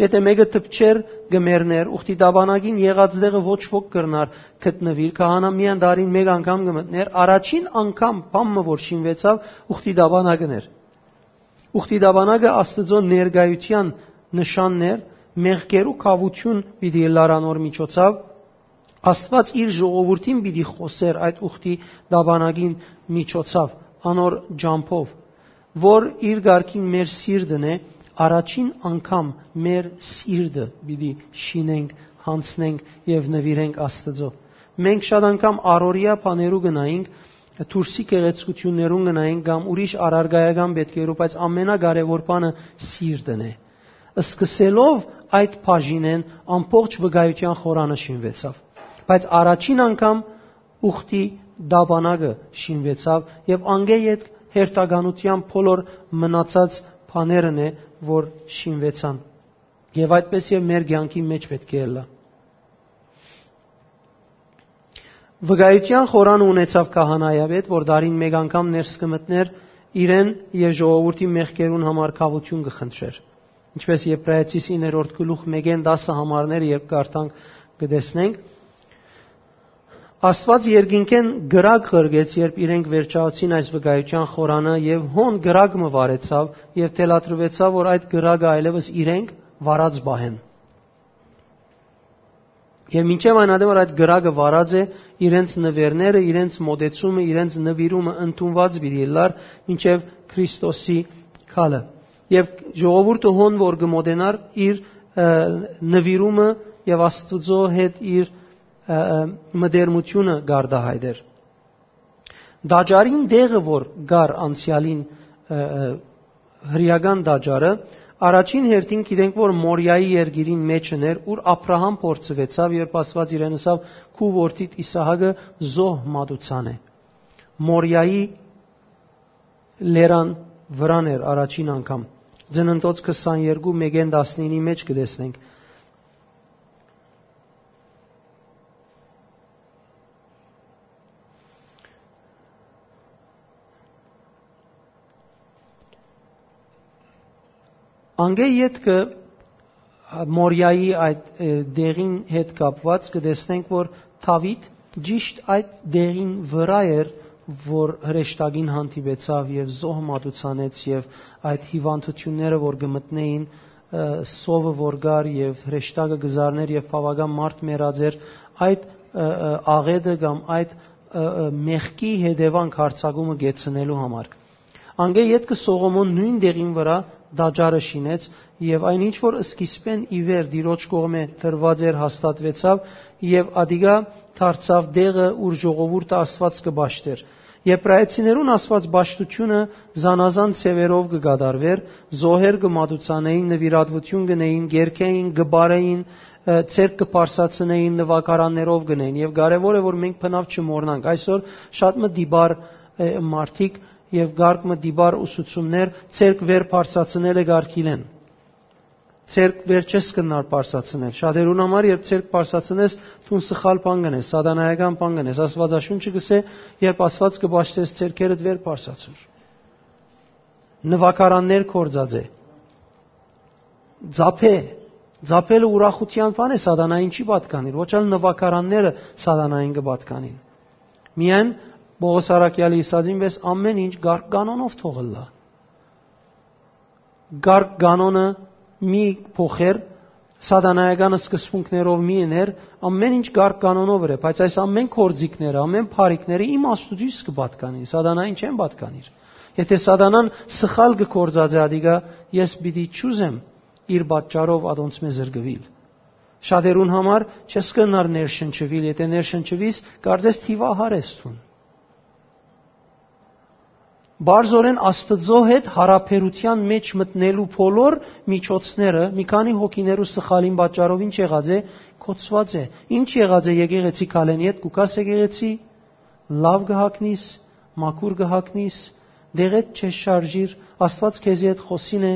եթէ մէկը դպչէր, կը մեռնէր, ուխտի դաբանագին եղած տեղը ոչ ոք կրնար գտնուիլ, քահանան միայն տարին մէկ անգամ կը մտնէր, առաջին անգամ բան մը որ շինուեցաւ, ուխտի դաբանագն էր։ Ուխտի դաբանագը Աստուծոյ ներկայութեան նշանն էր, մեղքերու քաւութիւն պիտի ըլլար անոր միջոցաւ, Աստուած իր ժողովուրդին պիտի խօսէր այդ ուխտի դաբանագին միջոցաւ, անոր ճամբով, որ իր կարգին մեր սիրտն է, առաջին անգամ մեր սիրտը պիտի շինենք, յանձնենք եւ նուիրենք Աստուծոյ։ Մենք շատ անգամ առօրեայ բաներու գնայինք, դուրսի գեղեցկութիւններուն գնայինք կամ ուրիշ առարկայական պէտքերու, բայց ամենակարեւոր բանը սիրտն է։ Սկսելով այդ բաժինէն ամբողջ վկայութեան խորանը շինուեցաւ։ Բայց առաջին անգամ ուխտի դաբանագը շինուեցաւ եւ անկէ ետք հերթականութեան բոլոր մնացած բաներն է, որ շինուեցան։ Եւ այդպես եւ մեր կեանքի մէջ պէտք է ըլլայ։ Վկայութեան խորանը ունեցաւ քահանայապետ, որ տարին մէկ անգամ ներս կը մտնէր իրեն եւ ժողովուրդի մեղքերուն համար քաւութիւն կը խնդրէր։ Ինչպէս Եբրայեցիս իններորդ գլուխ մէկէն տասը համարներ երբ կարդանք, կը տեսնենք, Աստուած երկինքէն կրակ ղրկեց, երբ իրենք վերջացուցին այս վկայութեան խորանը, եւ հոն կրակ մը վարեցաւ եւ թելադրուեցաւ, որ այդ կրակը այլեւս իրենք վարած պահեն։ Եւ մինչեւ այն ատեն, որ այդ կրակը վարած է, իրենց նուերները, իրենց մոտեցումը, իրենց նուիրումը ընդունուած պիտի ըլլար մինչեւ Քրիստոսի գալը։ Եւ ժողովուրդը հոն որ կը մոտենար, իր, ը, նուիրումը եւ Աստուծոյ հետ իր, ը, ը, մտերմութիւնը կարտահայտէր։ Տաճարին տեղը, որ կար անցեալին, ը, ը, հրեական տաճարը, առաջին հերթին գիտենք, որ Մորիայի երկիրին մէջն էր, ուր Աբրահամ փորձուեցաւ, երբ Աստուած իրեն ըսաւ. «Քու որդիդ Իսահակը զոհ մատուցան է»։ Մորիայի լերան վրան էր առաջին անգամ։ Ծննդոց քսաներկու մէկէն տասնինի մէջ կը տեսնենք։ Անկէ ետքը Մորիայի այդ, ը, դեղին հետ կապուած կը տեսնենք, որ Դաւիթ ճիշդ այդ դեղին վրայ էր, որ հրեշտակին հանդիպեցաւ եւ զոհ մատուցանեց, եւ այդ հիւանդութիւնները, որ կը մտնէին, ը, սովը որ կար եւ հրեշտակը կը զարնէր եւ բաւական մարդ մեռած էր, այդ, ը, ը, աղէտը կամ այդ, ը, ը, մեղքի հետեւանք յարձակումը կեցնելու համար։ Անկէ ետքը Սողոմոն նոյն դեղին վրայ տաճարը շինեց, եւ այն ինչ որ սկիզբէն ի վեր Տիրոջ կողմէ տրուած էր, հաստատուեցաւ, եւ ատիկա դարձաւ տեղը, ուր ժողովուրդը Աստուած կը պաշտէր։ Եբրայեցիներուն Աստուած պաշտութիւնը զանազան ձեւերով կը կատարուէր, զոհեր կը մատուցանէին, նուիրատուութիւն կ'ընէին, կ'երգէին, կը պարէին, ը, ձեռք կը բարձրացնէին, նուագարաններով կ'ընէին, եւ կարեւոր է, որ մենք բնաւ չմոռնանք։ Այսօր շատ մը դիպար, ը, մարդիկ եւ կարգ մը դիպար ուսուցումներ, ձեռք վեր բարձրացնելը կարգիլեն։ Ձեռք վեր չես կնար բարձրացնել։ Շատերուն համար, երբ ձեռք բարձրացնես, դուն սխալ բան կ'ընես, սատանայական բան կ'ընես։ Աստուածաշունչը կ'ըսէ, երբ Աստուած կը պաշտես, ձեռքերդ վեր բարձրացուր։ Նուագարաններ գործած է։ Ձափէ, ձափելը ուրախութեան բան է, սատանային չի պատկանիր, ոչ ալ նուագարանները սատանային կը պատկանին։ Միայն Պողոս առաքեալը ըսածին պէս, ամէն ինչ կարգ կանոնով թող ըլլայ։ Կարգ կանոնը մի փոխեր, սատանայական սկզբունքներով մի ըներ, ամէն ինչ կարգ կանոնով էր, բայց այս ամէն գործիքները, ամէն բարիքները իմ Աստուծոյս կը պատկանին, սատանային չեն պատկանիր։ Եթե սատանան սխալ կը գործածէ ադիկա, ես պիտի չուզեմ իր պատճառով ատոնցմէ զրկուիլ։ Շատերուն համար չես կնար ներշնչուիլ, եթե ներշնչուիս, կարծես թիվահար ես դուն։ Բարձորեն Աստծո հետ յարաբերութեան մեջ մտնելու բոլոր միջոցները, մի քանի հոգիներու սխալին պատճառով ինչ եղած է, կոչուած է։ Ինչ եղած է, եկեղեցի քալեն յետ կու գաս եկեղեցի, լաւ կը հագնիս, մաքուր կը հագնիս, դեղետ չես շարժիր, Աստուած քեզի հետ խօսին է,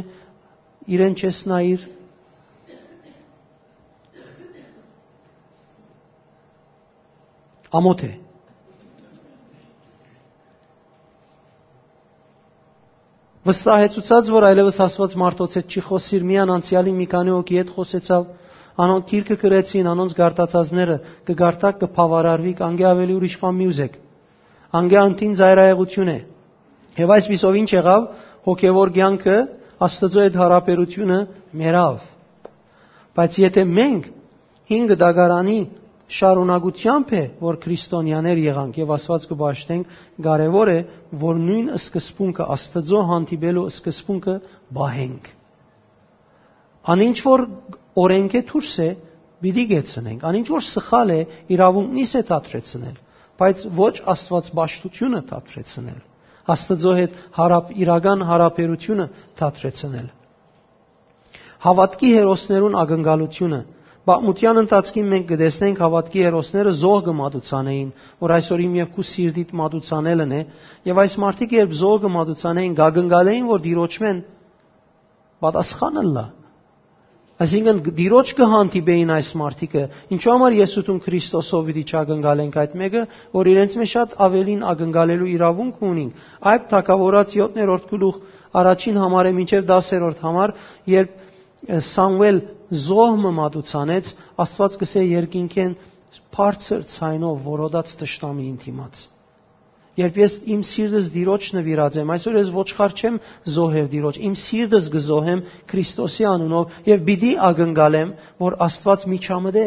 իրեն չես նայիր։ Ամոթ է։ Վստահեցուցած, որ այլևս Աստուած մարդոց հետ չի խօսիր, միան անցեալին մի քանի հոգի հետ խօսեցաւ, անոնք գիրքը գրեցին, անոնց գարտացածները կը գարտաք, կը բաւարարուիք, անկէ աւելի ուրիշ բան մի ուզեք։ Անկէ անդին ծայրայեղութիւն է։ Եւ այսպիսով ինչ եղաւ, հոգեվոր կեանքը, Աստծո հետ յարաբերութիւնը մեռաւ։ Բայց եթե մենք հինգ դագարանի շարունակութեամբ է, որ քրիստոնյաներ եղանք եւ Աստուած կը պաշտենք, կարեւոր է, որ նոյն սկզբունքը, Աստծո հանդիպելու սկզբունքը պահենք։ Անինչ որ օրենքէ դուրս է, պիտի կեցնենք։ Անինչ որ սխալ է, իրաւունքնիս է դադրեցնել, բայց ոչ Աստուած պաշտութիւնը դադրեցնել, Աստծո հետ հարապ-, իրական հարաբերութիւնը դադրեցնել։ Հաւատքի հերոսներուն ակնկալութիւնը։ Պատմութեան ընթացքին մենք կը տեսնենք հաւատքի հերոսները զոհ կը մատուցանեին, որ այսօր իմ եւ քու սիրտիդ մատուցանելն է, եւ այս մարդիկ երբ զոհ կը մատուցանեին, կակնկալեին, որ Տիրոջմէն պատասխան ըլլայ։ Այսինքն, Տիրոջ կը հանդիպեին այս մարդիկը։ Ինչու համար ես ու դուն Քրիստոսով պիտի չակնկալենք այդ մէկը, որ իրենց մէջ շատ աւելին ակնկալելու իրաւունք ունինք։ Այդ թագաւորաց յոթերորդ գլուխ առաջին համարէ մինչեւ տասերորդ համար, երբ, ը, Սամուէլ զոհ մը մատուցանեց, Աստուած կսէ երկինքէն բարձր ձայնով որոտաց թշնամիին դիմաց։ Երբ ես իմ սիրտս Տիրոջ նուիրած եմ, այսօր ես ոչխար չեմ զոհեր Տիրոջ, իմ սիրտս կը զոհեմ Քրիստոսի անունով եւ պիտի ակնկալեմ, որ Աստուած միջամտէ։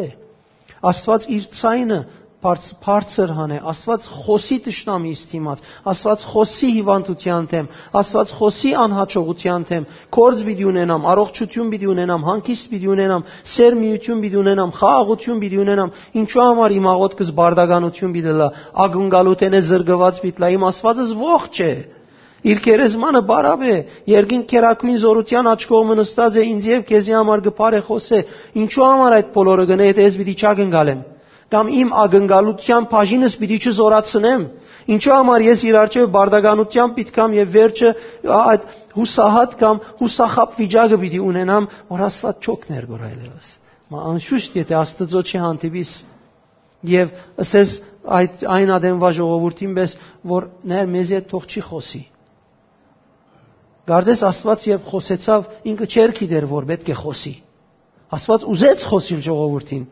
Աստուած իր ձայնը բարձ-, բարձր հանէ, Աստուած խօսի թշնամիս դիմաց, Աստուած խօսի հիւանդութեան դէմ, Աստուած խօսի անհաջողութեան դէմ, գործ պիտի ունենամ, առողջութիւն պիտի ունենամ, հանգիստ պիտի ունենամ, սեր միութիւն պիտի ունենամ, խաղաղութիւն պիտի ունենամ, ինչու համար իմ աղօթքս բարդականութիւն պիտի լա, ակնկալութենէ զրկուած պիտի լա, իմ Աստուածս ողջ է, իր գերեզմանը պարապ է, երկին կերակույն զօրութեան աջ կողմը նստած է, ինձ եւ քեզի համար կը բարեխօսէ, ինչու համար այդ բոլորը կ'ընէ, եթե ես պիտի չակնկալեմ, կամ իմ ակնկալութեան բաժինս պիտի չզօրացնեմ, ինչու համար ես իր առջեւ բարդականութեան պիտի կամ եւ վերջը այդ յուսահատ կամ յուսախաբ վիճակը պիտի ունենամ, որ Աստուած չօգներ գոր այլևս։ Մա անշուշտ, եթե Աստծո չի հանդիպիս, եւ ըսես այդ այն ադենվա ժողովուրդին պէս, որ ներ մեզի հետ թող չի խօսի։ Կարծես Աստուած երբ խօսեցաւ, ինքը չէր գիտեր որ պէտք է խօսի։ Աստուած ուզեց խօսիլ ժողովուրդին։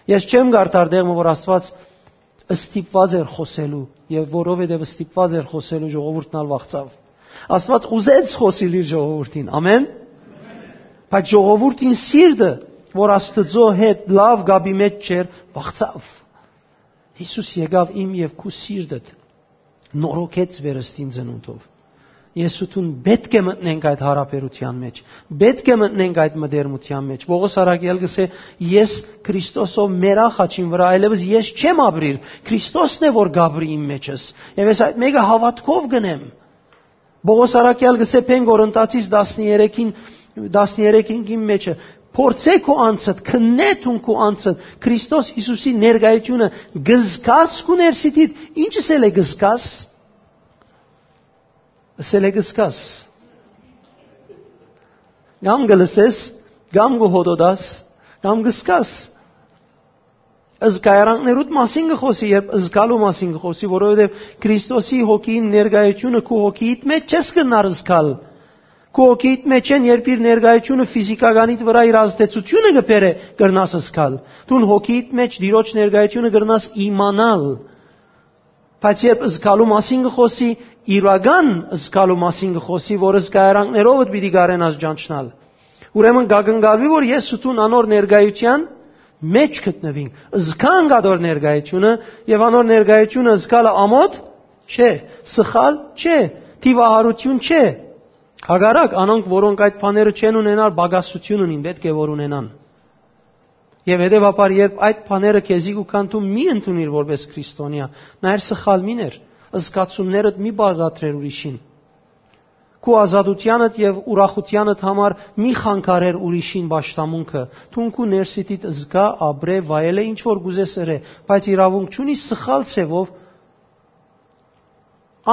Ես չեմ կարդար տեղ մը որ Աստուած ստիպուած էր խօսելու, եւ որովհետեւ ստիպուած էր խօսելու, ժողովուրդն ալ վախցաւ։ Աստուած ուզեց խօսիլ իր ժողովուրդին։ Ամեն։ Բայց ժողովուրդին սիրտը, որ Աստուծոյ հետ լաւ կապի մէջ չէր, վախցաւ։ Յիսուս եկաւ իմ եւ քու սիրտդ, նորոգեց վերստին ծնունդով։ Ես ու դուն պէտք է մտնենք այդ յարաբերութեան մէջ, պէտք է մտնենք այդ մտերմութեան մէջ։ Պողոս առաքյալ կ'ըսէ. «Ես Քրիստոսով մեռայ խաչին վրայ, այլեւս ես չեմ ապրիր, Քրիստոսն է որ կ'ապրի իմ մեջս, եւ ես այդ մէկը հաւատքով կ'ընեմ»։ Պողոս առաքյալ կ'ըսէ Փեն Կորինթացիս տասներեքին, տասներեքին մեջը. «Փորձէ քու անձդ, քննէ դուն քու անձդ, Քրիստոս Յիսուսի ներկայութիւնը կ'զգաս քու ներսիդիդ, ինչս ըսել է կ'զգաս, ըսել է կ'զգաս, կամ կը լսես, կամ կը հոտոտաս, կամ կ'զգաս»։ Զգայարանքներուդ մասին կը խօսի, երբ զգալու մասին կը խօսի, որովհետեւ Քրիստոսի հոգին ներկայությունը քու հոգիիդ մէջ չես կրնար զգալ։ Քու հոգիիդ մէջ են, երբ իր ներկայությունը ֆիզիկականիդ վրայ իր ազդեցությունը կը բերէ, կրնաս զգալ։ Դուն հոգիիդ մէջ Տիրոջ ներկայությունը կրնաս իմանալ։ Բայց երբ զգալու մասին կը խօսի, իրական զգալու մասին կը խօսի, որ զգայարանքներովդ պիտի կարենաս ճանչնալ։ Ուրեմն կ'ակնկալուի, որ ես ու դուն անոր ներկայութեան մէջ գտնուինք, զգանք անոր ներկայությունը, եւ անոր ներկայությունը զգալը ամոթ չէ, սխալ չէ, դիւահարութիւն չէ։ Հակառակ, անոնք, որոնք այդ բաները չեն ունենար, պակասութիւն ունին, պէտք է որ ունենան։ Եւ հետեւաբար, երբ այդ բաները քեզի կու գան, դու մի ընդունիր որպես քրիստոնեայ, նայր, սխալ մի ներ, զգացումներդ մի բաղադրեր ուրիշին։ Քու ազատութեանդ եւ ուրախութեանդ համար մի խանգարեր ուրիշին պաշտամունքը։ Դուն քու ներսիդիդ զգա, ապրէ, վայելէ, ինչ որ կ'ուզես ըրէ, բայց իրաւունք չունի սխալ ձեւով,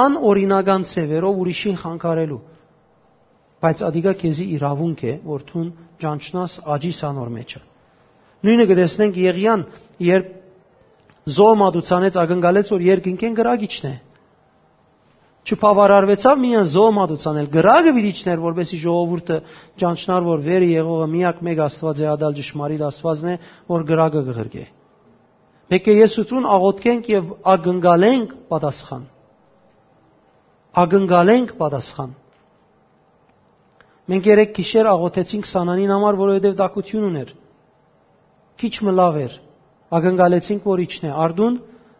անօրինական ձեւերով ուրիշին խանգարելու։ Բայց ատիկա քեզի իրաւունք է, որ դուն ճանչնաս, աճիս անոր մեջը։ Նոյնը կը տեսնենք Եղիան, երբ զոհ մատուցանեց, ակնկալեց, որ երկնքէն կրակ իջնէ։ Չբաւարարուեցաւ միայն զոհ մատուցանել, կրակը պիտի իջներ, որպեսզի ժողովուրդը ճանչնար, որ վերը եղողը միակ մէկ Աստուած է, ատալ ճշմարիտ Աստուածն է, որ կրակը կը ղրկէ։ Պէտք է ես ու դուն աղօթքենք եւ ակնկալենք պատասխան։ Ակնկալենք պատասխան։ Մենք երեկ գիշեր աղօթեցինք Սանանին համար, որովհետեւ տաքութիւն ունէր։ Քիչ մը լաւ էր։ Ակնկալեցինք, որ իջնէ։ Արդուն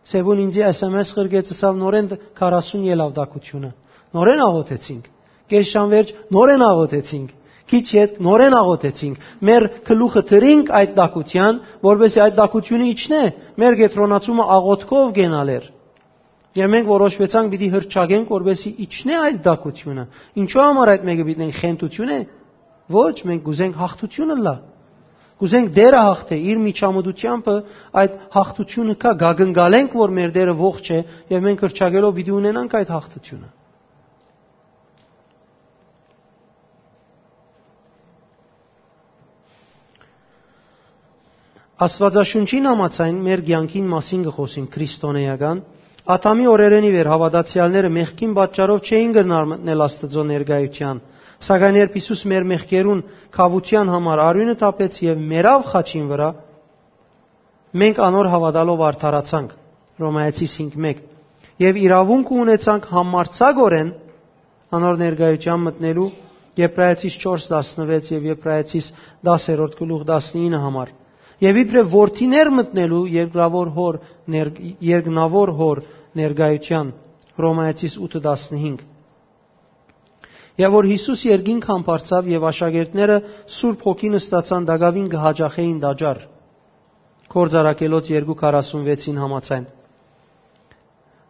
Սեբուն ինձի S M S ղրկեց, ըսաւ, նորէն դ-, քառասուն ելաւ տաքութիւնը։ Նորէն աղօթեցինք։ Կես ժամ վերջ նորէն աղօթեցինք։ Քիչ յետ նորէն աղօթեցինք։ Մեր գլուխը դրինք այդ տաքութեան, որպեսզի այդ տաքութիւնը իջնէ։ Մեր կեդրոնացումը աղօթքով կենալ էր։ Եւ մենք որոշուեցանք պիտի հրճակենք, որպեսզի իջնէ այդ տաքութիւնը։ Ինչո՞ւ համար այդ մէկը պիտի ենք, խենթութիւն է։ Ոչ, մենք կ'ուզենք հաղթութիւն ըլլայ։ Կ'ուզենք Տէրը հաղթէ, իր միջամտությամբ այդ հաղթութիւնը կայ, կ'ակնկալենք, որ մեր Տէրը ողջ է, եւ մենք հրճակելով պիտի ունենանք այդ հաղթութիւնը։ Աստուածաշունչին համաձայն մեր կեանքին մասին կը խօսին քրիստոնէական։ Ադամի օրերէն ի վեր հաւատացեալները մեղքին պատճառով չէին կրնար մտնել Աստուծոյ ներկայութեան, սակայն երբ Յիսուս մեր մեղքերուն քաւութեան համար արիւնը թափեց եւ մեռաւ խաչին վրայ, մենք անոր հաւատալով արդարացանք, Հռոմայեցիս հինգ մէկ, եւ իրաւունքը ունեցանք համարձակօրէն անոր ներկայութեան մտնելու, Եբրայեցիս չորս տասնվեց եւ Եբրայեցիս դասերորդ գլուխ տասնինը համար, եւ իբրեւ որդիներ մտնելու երկրավոր հոր ներ-, երկնավոր հոր ներկայութեան, Հռոմայեցիս ութը տասնհինգ։ Եւ որ Յիսուս երկինք համբարձաւ եւ աշակերտները Սուրբ Հոգին ստացան, տակաւին կը հաճախէին տաճար, Գործարակելոց երկու քառասունվեցին համաձայն։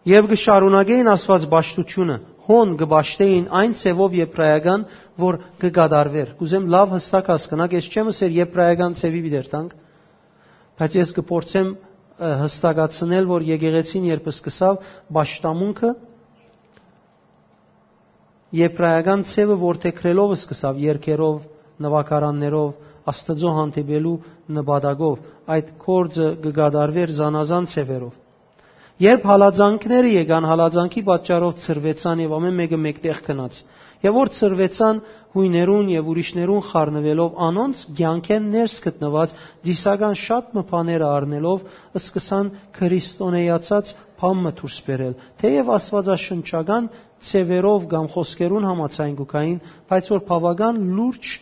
Եւ կը շարունակէին Աստուած պաշտութիւնը, հոն կը պաշտէին այն ձեւով եբրայական, որ կը կատարուէր։ Կ'ուզեմ լաւ հստակ հասկնաք, ես չեմ ըսեր եբրայական ձեւի պիտի երթանք, բայց ես կը փորձեմ, ը, հստակացնել, որ եկեղեցին երբ սկսաւ պաշտամունքը, եբրայական ձևը որդեգրելով սկսաւ, երգերով, նուագարաններով, Աստուծոյ հանդիպելու նպատակով, այդ գործը կը կատարուէր զանազան ձևերով։ Երբ հալածանքները եկան, հալածանքի պատճառով ցրուեցան եւ ամէն մէկը մէկտեղ գնաց։ Եւ որ ցրուեցան յոյներուն եւ ուրիշներուն խառնուելով, անոնց կեանքէն ներս գտնուած ծիսական շատ մը բաները առնելով, սկսան քրիստոնեացած բան մը դուրս բերել։ Թեեւ աստուածաշնչական ձեւերով կամ խօսքերուն համաձայն կու գային, բայց որ բաւական լուրջ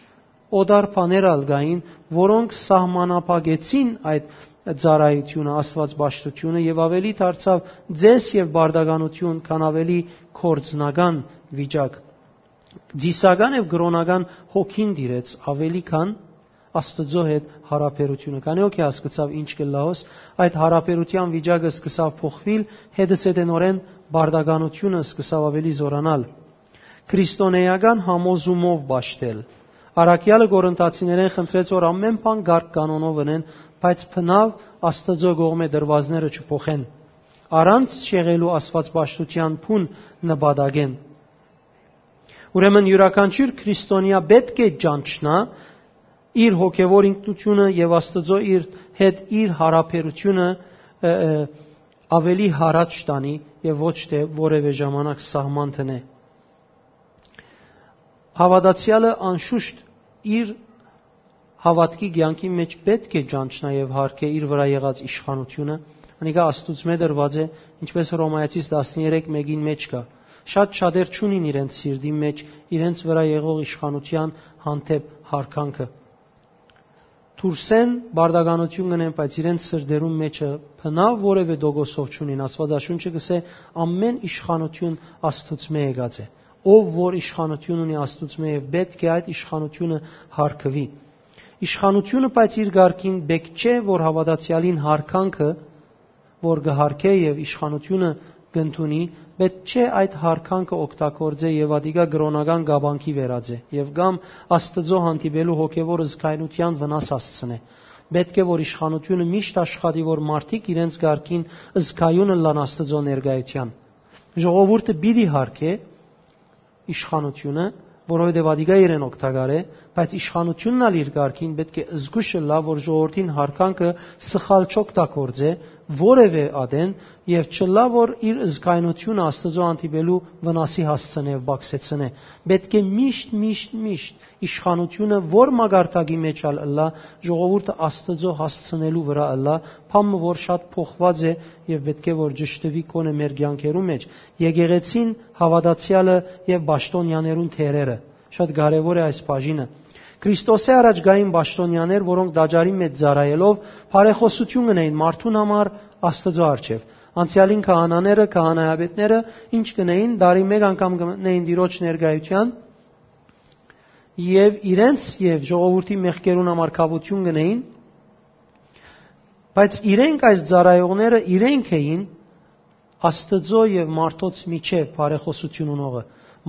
օտար բաներ ալ կային, որոնք սահմանափակեցին այդ ծառայութիւնը, աստուածպաշտութիւնը, եւ ավելի դարձաւ ձեզ եւ բարդականություն, քան ավելի գործնական վիճակ։ Ծիսական եւ կրօնական հոգին տիրեց ավելի քան Աստուծոյ հետ յարաբերութիւնը։ Քանի՞ հոգի հասկցաւ ինչ կ'ըլլայ հոս, այդ յարաբերութեան վիճակը սկսաւ փոխուիլ, հետզհետենօրէն բարդականությունը սկսաւ ավելի զօրանալ։ Քրիստոնեական համոզումով պաշտել։ Առաքեալը Կորինթացիներէն խնդրեց, որ ամէն բան կարգ կանոնով ընեն, բայց բնաւ Աստուծոյ կողմէ դրուածները չփոխեն, առանց չեղելու աստուածպաշտութեան բուն նպատակէն։ Ուրեմն յուրաքանչիւր քրիստոնեայ պէտք է ճանչնայ իր հոգեւոր ինքնութիւնը եւ Աստուծոյ իր հետ իր յարաբերութիւնը, ը, ը, ավելի յառաջ տանի եւ ոչ թէ որեւէ ժամանակ սահման դնէ։ Հաւատացեալը անշուշտ իր հաւատքի կեանքի մէջ պէտք է ճանչնայ եւ յարգէ իր վրայ եղած իշխանութիւնը։ Անիկա Աստուծմէ տրուած է, ինչպէս Հռոմայեցիս տասներեք մէկին մէջ կայ։ Շատ շատեր չունին իրենց սիրտին մէջ իրենց վրայ եղող իշխանութեան հանդէպ յարգանքը։ Դուրսէն բարդականութիւն կ'ընեն, բայց իրենց սրտերուն մէջը բնաւ որեւէ տոկոսով չունին։ Աստուածաշունչը կ'ըսէ. «Ամէն իշխանութիւն Աստուծմէ եկած է։ Ով որ իշխանութիւն ունի Աստուծմէ, եւ պէտք է այդ իշխանութիւնը յարգուի»։ Իշխանութիւնը, բայց իր կարգին պէտք չէ, որ հաւատացեալին յարգանքը, որ կը յարգէ եւ իշխանութիւնը կ'ընդունի, պէտք չէ այդ յարգանքը օգտագործէ եւ ատիկա կրօնական կապանքի վերածէ եւ կամ Աստուծոյ հանդիպելու հոգեւոր զգայնութեան վնաս հասցնէ։ Պէտք է, որ իշխանութիւնը միշտ աշխատի, որ մարդիկ իրենց կարգին զգայուն ըլլան Աստուծոյ ներկայութեան։ Ժողովուրդը պիտի յարգէ իշխանութիւնը, որովհետեւ ատիկա իրեն օգտակար է, բայց իշխանութիւնն ալ իր կարգին պէտք է զգուշ ըլլայ, որ ժողովրդին յարգանքը սխալ չօգտագործէ որեւէ ատեն եւ չըլլայ, որ իր զգայնութիւնը Աստուծոյ հանդիպելու վնասի հասցնէ եւ բակսեցնէ։ Պէտք է միշտ, միշտ, միշտ իշխանութիւնը որ մակարդակի մէջ ալ ըլլայ, ժողովուրդը Աստուծոյ հասցնելու վրայ ըլլայ, բան մը որ շատ փոխուած է եւ պէտք է որ ճշդուի գոնե մեր կեանքերու մէջ։ Եկեղեցին, հաւատացեալը եւ պաշտոնեաներուն դերերը։ Շատ կարեւոր է այս բաժինը։ Քրիստոսէ առաջ կային պաշտոնեաներ, որոնք տաճարի մէջ ծառայելով բարեխօսութիւն կ'ընէին մարդուն համար Աստուծոյ առջեւ։ Անցեալին քահանաները, քահանայապետները ինչ կ'ընէին, տարի մէկ անգամ կը մտնէին Տիրոջ ներկայութեան եւ իրենց եւ ժողովուրդի մեղքերուն համար քաւութիւն կ'ընէին, բայց իրենք, այս ծառայողները, իրենք էին Աստուծոյ եւ մարդոց միջեւ բարեխօսութիւն ունողը։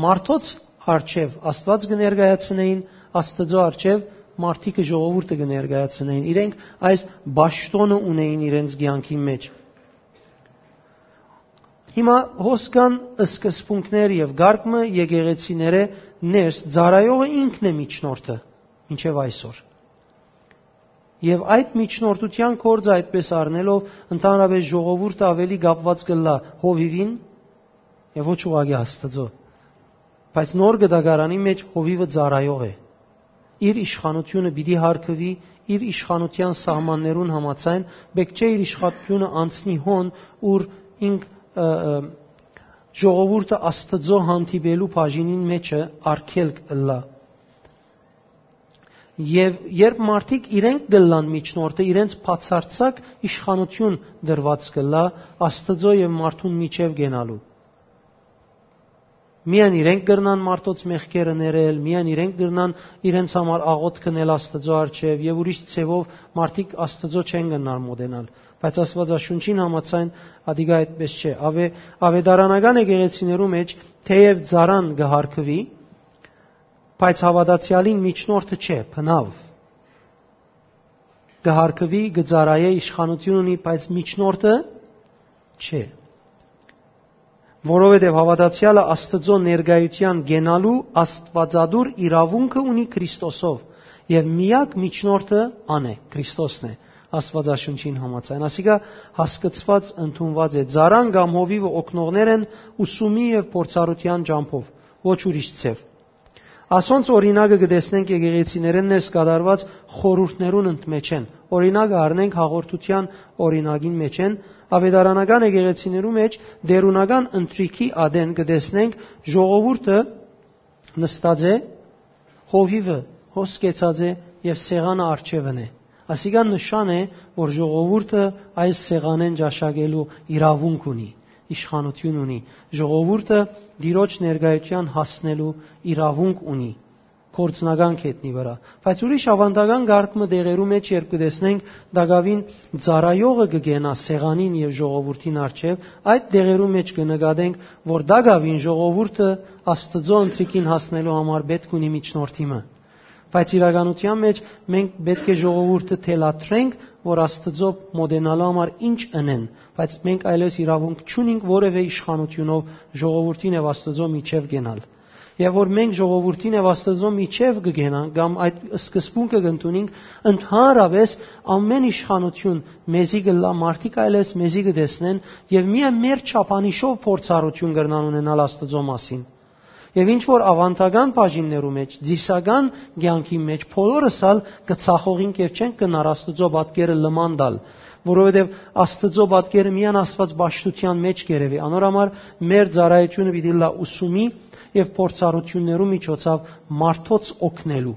Մարդոց առջեւ Աստուած կը ներկայացնէին, Աստուծոյ առջեւ մարդիկը, ժողովուրդը կը ներկայացնէին։ Իրենք այս պաշտոնը ունէին իրենց կեանքի մէջ։ Հիմա հոս կան սկզբունքներ եւ կարգ մը եկեղեցիներէ ներս, ծառայողը ինքն է միջնորդը մինչեւ այսօր։ Եւ այդ միջնորդութեան գործը այդպես առնելով, ընդհանրապես ժողովուրդը ավելի կապուած կ'ըլլայ հովիւին եւ ոչ ուղղակի Աստուծոյ։ Բայց նոր կտակարանի մէջ հովիւը ծառայող է։ Իր իշխանութիւնը պիտի յարգուի, իր իշխանութեան սահմաններուն համաձայն, պէտք չէ իր իշխանութիւնը անցնի հոն, ուր ինք, ը, ը, ժողովուրդը Աստուծոյ հանդիպելու բաժինին մէջը արգելք ըլլայ։ Եւ երբ մարդիկ իրենք կ'ըլլան միջնորդը, իրենց բացարձակ իշխանութիւն դրուած կ'ըլլայ Աստուծոյ եւ մարդուն միջեւ կենալու։ Միայն իրենք կրնան մարդոց մեղքերը ներել, միայն իրենք կրնան իրենց համար աղօթք ընել Աստուծոյ առջեւ եւ ուրիշ ձեւով մարդիկ Աստուծոյ չեն կրնար մոտենալ։ Բայց Աստուածաշունչին համաձայն ատիկա այդպես չէ։ Ավե-, ավետարանական եկեղեցիներու մէջ թեեւ ծառան կը յարգուի, բայց հաւատացեալին միջնորդը չէ, բնաւ։ Կը յարգուի, կը ծառայէ, իշխանութիւն ունի, բայց միջնորդը չէ։ Որովհետեւ հաւատացեալը Աստուծոյ ներկայութեան կենալու աստուածատուր իրաւունքը ունի Քրիստոսով, եւ միակ միջնորդը ան է, Քրիստոսն է, Աստուածաշունչին համաձայն։ Ասիկա հասկցուած, ընդունուած է։ Ծառան կամ հովիւը օգնողներ են ուսումի եւ փորձառութեան ճամբով, ոչ ուրիշ ձեւ։ Ասոնց օրինակը կը տեսնենք եկեղեցիներէն ներս կատարուած խորհուրդներուն ընդմէջէն։ Օրինակը առնենք հաղորդութեան օրինակին մէջէն, աւետարանական եկեղեցիներու մէջ տէրունական ընթրիքի ատեն կը տեսնենք ժողովուրդը նստած է, հովիւը հոս կեցած է եւ սեղանը առջեւն է։ Ասիկա նշան է, որ ժողովուրդը այս սեղանէն ճաշակելու իրաւունք ունի, իշխանութիւն ունի, ժողովուրդը Տիրոջ ներկայութեան հասնելու իրաւունք ունի, գործնական գետնի վրայ։ Բայց ուրիշ աւանդական կարգ մը տեղերու մէջ, երբ կը տեսնենք, տակաւին ծառայողը կը կենայ սեղանին եւ ժողովուրդին առջեւ, այդ տեղերու մէջ կը նկատենք, որ տակաւին ժողովուրդը Աստուծոյ ընթրիքին հասնելու համար պէտք ունի միջնորդի մը։ Բայց իրականութեան մէջ մենք պէտք է ժողովուրդը թելադրենք, որ Աստուծոյ մօտենալու համար ինչ ընեն, բայց մենք այլեւս իրաւունք չունինք որեւէ իշխանութիւնով ժողովուրդին եւ Աստուծոյ միջեւ կենալ։ Եւ որ մենք ժողովուրդին եւ Աստուծոյ միջեւ կը կենանք կամ այդ սկզբունքը կ'ընդունինք, ընդհանրապէս ամէն իշխանութիւն մեզի կ'ըլլայ, մարդիկ այլեւս մեզի կը տեսնեն եւ միայն մեր չափանիշով փորձառութիւն կրնան ունենալ Աստուծոյ մասին։ Եւ ինչ որ աւանդական բաժիններու մէջ, ծիսական կեանքի մէջ, բոլորս ալ կը ցախողինք եւ չենք կրնար Աստուծոյ պատկերը լման տալ, որովհետեւ Աստուծոյ պատկերը միայն Աստուած պաշտութեան մէջ կ'երեւի։ Անոր համար մեր ծառայութիւնը պիտի ըլլայ ուսումի եւ փորձառութիւններու միջոցաւ մարդոց օգնելու,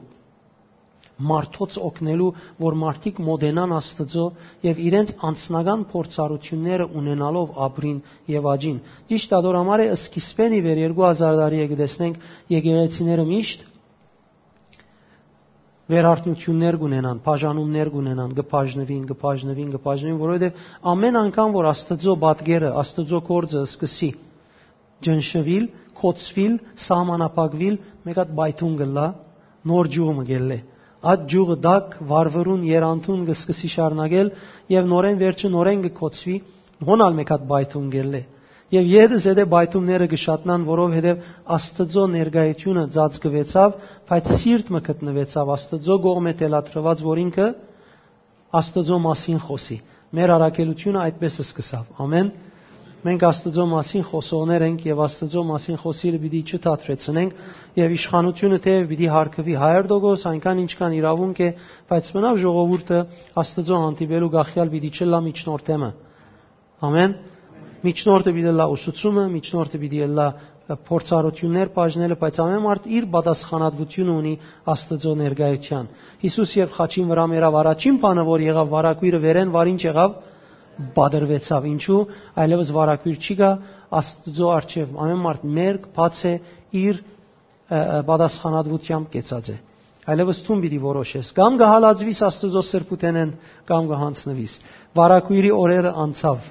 մարդոց օգնելու, որ մարդիկ մօտենան Աստուծոյ եւ իրենց անձնական փորձառութիւնները ունենալով ապրին եւ աճին։ Ճիշդ ատոր համար է, սկիզբէն ի վեր երկու հազար տարի է կը տեսնենք եկեղեցիները միշտ վերարտնութիւններ կ'ունենան, բաժանումներ կ'ունենան, կը բաժնուին, կը բաժնուին, կը բաժնուին, որովհետեւ ամէն անգամ որ Աստուծոյ պատկերը, Աստուծոյ գործը սկսի ճնշուիլ, կոչուիլ, սահմանափակուիլ, մէկ հատ պայթուն կ'ըլլայ, նոր ճիւղ մը կ'ելլէ։ Այդ ճիւղը տաք, վառվռուն, երանդուն կը սկսի շարունակել եւ նորէն վերջը նորէն կը կոչուի, հոն ալ մէկ հատ պայթուն կ'ելլէ։ Եւ ետը զետը պայթումները կը շատնան, որովհետեւ Աստուծոյ ներկայութիւնը ծածկուեցաւ, բայց սիրտ մը գտնուեցաւ Աստուծոյ կողմէ թելադրուած, որ ինքը Աստուծոյ մասին խօսի։ Մեր առաքելութիւնը այդպէս սկսաւ։ Ամէն։ Մենք Աստուծոյ մասին խօսողներ ենք եւ Աստուծոյ մասին խօսիլը պիտի չդադրեցնենք, եւ իշխանութիւնը թէեւ պիտի հարգուի հարյուր տոկոս, այնքան ինչքան իրաւունք է, բայց մնաւ ժողովուրդը Աստուծոյ հանդիպելու կախեալ պիտի չըլլայ միջնորդէ մը։ Ամէն։ Միջնորդը պիտի ըլլայ ուսուցումը, միջնորդը պիտի ըլլայ փորձառութիւններ բաժնելը, բայց ամէն մարդ իր պատասխանատվութիւնը ունի Աստուծոյ ներկայութեան։ Յիսուս երբ խաչին վրայ մեռաւ, առաջին բանը որ եղաւ, վարակոյրը վերէն վար ինչ եղաւ, պատրուեցաւ։ Ինչու՞, այլեւս վարակոյր չի գա Աստուծոյ առջեւ։ Ամէն մարդ մերկ, բաց է իր, ը, ը, պատասխանատվութեամբ կեցած է։ Այլեւս դուն պիտի որոշես, կամ կը հալածուիս Աստուծոյ սրբութենէն, կամ կը յանձնուիս։ Վարակոյրի օրերը անցաւ։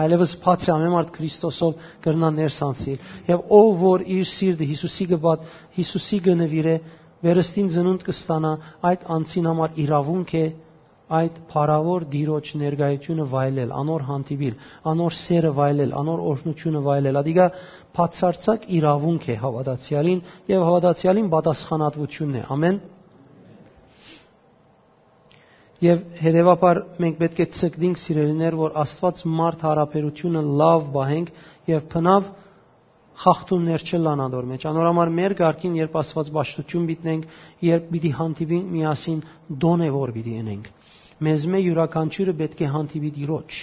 Այլեւս բաց է, ամէն մարդ Քրիստոսով կրնայ ներս անցնիլ։ Եւ ով որ իր սիրտը Յիսուսի կը բաց-, Յիսուսի կը նուիրէ, վերստին ծնունդ կը ստանայ, այդ անձին համար իրաւունք է այդ փառաւոր Տիրոջ ներկայութիւնը վայելել, անոր հանդիպիլ, անոր սէրը վայելել, անոր օրհնութիւնը վայելել։ Ադիկա բացարձակ իրաւունք է հաւատացեալին եւ հաւատացեալին պատասխանատվութիւնն է։ Ամէն։ Եւ հետեւաբար մենք պէտք է ցկտինք, սիրելիներ, որ Աստուած մարդ յարաբերութիւնը լաւ պահենք եւ բնաւ խախտումներ չըլլան ատոր մէջ։ Անոր համար մեր կարգին, երբ Աստուած պաշտութիւն պիտի ունենք, երբ պիտի հանդիպինք միասին, դոնե որ պիտի ընենք, մեզմէ իւրաքանչիւրը պէտք է հանդիպի Տիրոջ։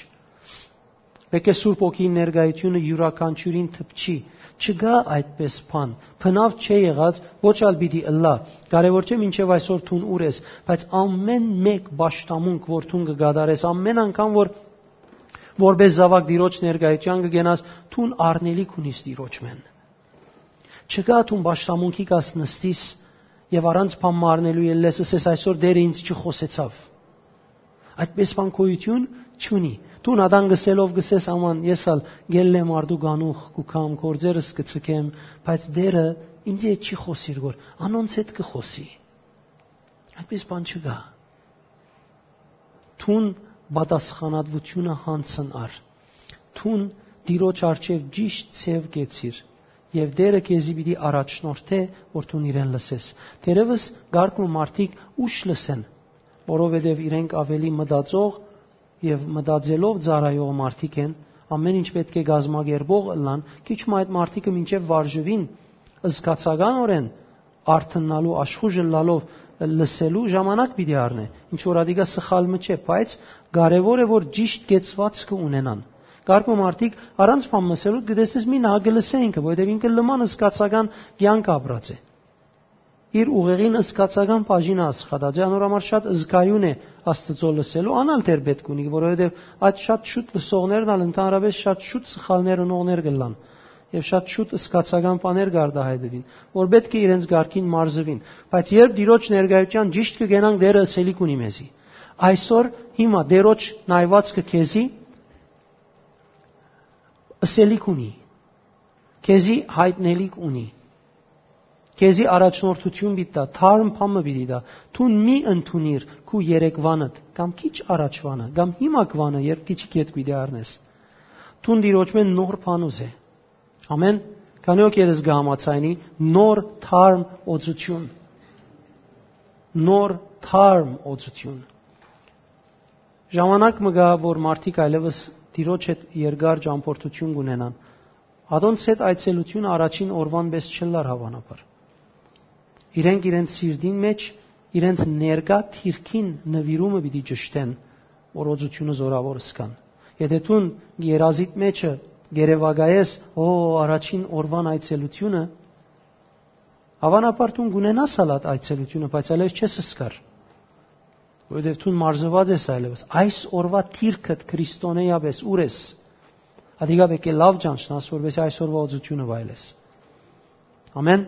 Պէտք է Սուրբ Հոգին ներկայութիւնը իւրաքանչիւրին դպչի։ Չկայ այդպէս բան։ Բնաւ չէ եղած, ոչ ալ պիտի ըլլայ։ Կարեւոր չէ մինչեւ այսօր դուն ուր ես, բայց ամէն մէկ պաշտամունք որ դուն կը կատարես, ամէն անգամ որ որպէս զաւակ Տիրոջ ներկայութեան կը կենաս, դուն առնելիք ունիս Տիրոջմէն։ Չկայ դուն պաշտամունքի կաս նստիս եւ առանց բան մը առնելու ելլես, ըսես, «Այսօր Տէրը ինձ չխօսեցաւ»։ Այդպէս բան գոյութիւն չունի։ Դուն ատան գսելով գսես, «Աման, ես ալ գելլեմ արդու գանուխ կու կամ, գործերս կը ցկեմ, բայց Տէրը ինձի հետ չի խօսիր, որ անոնց հետ կը խօսի»։ Այդպէս բան չկայ։ Դուն պատասխանատվութիւնը յանձն առ։ Դուն Տիրոջ առջեւ ճիշդ ձեւ կեցիր, եւ Տէրը քեզի պիտի առաջնորդէ, որ դուն իրեն լսես։ Թերեւս կարգ մը մարդիկ ուշ լսեն, որովհետեւ իրենք աւելի մտածող եւ մտածելով ծառայող մարդիկ են, ամէն ինչ պէտք է կազմակերպող ըլլան, քիչ մը այդ մարդիկը մինչեւ վարժուին, զգացականօրէն արթննալու, աշխուժ ըլլալով լսելու ժամանակ պիտի առնէ, ինչ որ ատիկա սխալ մը չէ, բայց կարեւոր է որ ճիշտ կեցուածքը ունենան։ Կարգ մը մարդիկ առանց բան մսելու կտեսնես մի նահ կը լսե ինքը, որովհետեւ ինքը լման զգացական կյանք ապրած է, իր ուղեղին զգացական բաժինը աշխատած է, անոր համար շատ զգայուն է Աստծո լսելու, անալ դեռ պետք ունի, որովհետեւ այդ շատ շուտ լսողներն ալ ընդհանրապես շատ շուտ սխալներ ընողներ կլան եւ շատ շուտ զգացական բաներ կարտահայտվին, որ պետք է իրենց կարգին մարզվին։ Բայց երբ Տիրոջ ներկայության ճիշտ կգենանք, Տերը ըսելիք ունի մեզի։ Այսօր հիմա Տիրոջ նայվածքը քեզի ըսելիք ունի, քեզի յայտնելիք ունի, քեզի առաջնորդություն պիտի տայ, թարմ բան մը պիտի տայ։ Դուն մի ընդունիր քու երեկվանդ, կամ քիչ առաջվանը, կամ հիմակվանը, երբ քիչ կետ պիտի առնես։ Դուն Տիրոջմէն նոր բան ուզե։ Ամեն, քանի օք երես կը համաձայնի, նոր թարմ օծություն, նոր թարմ օծություն։ Ժամանակ մը գայ, որ մարդիկ այլևս Տիրոջ հետ երկար ճամփորդություն կունենան։ Ատոնց հետ այցելությունը առաջին օրուան պէս չըլլար, հաւանաբար։ Իրենք իրենց սիրտին մէջ, իրենց ներկայ դիրքին նուիրումը պիտի ճշտեն, որ օծությունը զօրաւոր զգան։ Եթէ դուն երազիդ մէջը գերեվակայես, «Ո, առաջին օրուան այցելությունը», հաւանաբար դուն կունենաս ալ այդ այցելությունը, բայց այլեւս չես զգար, որովհետեւ դուն մարզուած ես այլեւս։ Այս օրուա դիրքդ քրիստոնեայապէս ո՞ւր ես։ Ատիկա պէտք է լաւ ճանչնաս, որպեսզի այս օրուա օծությունը վայելես։ Ամեն։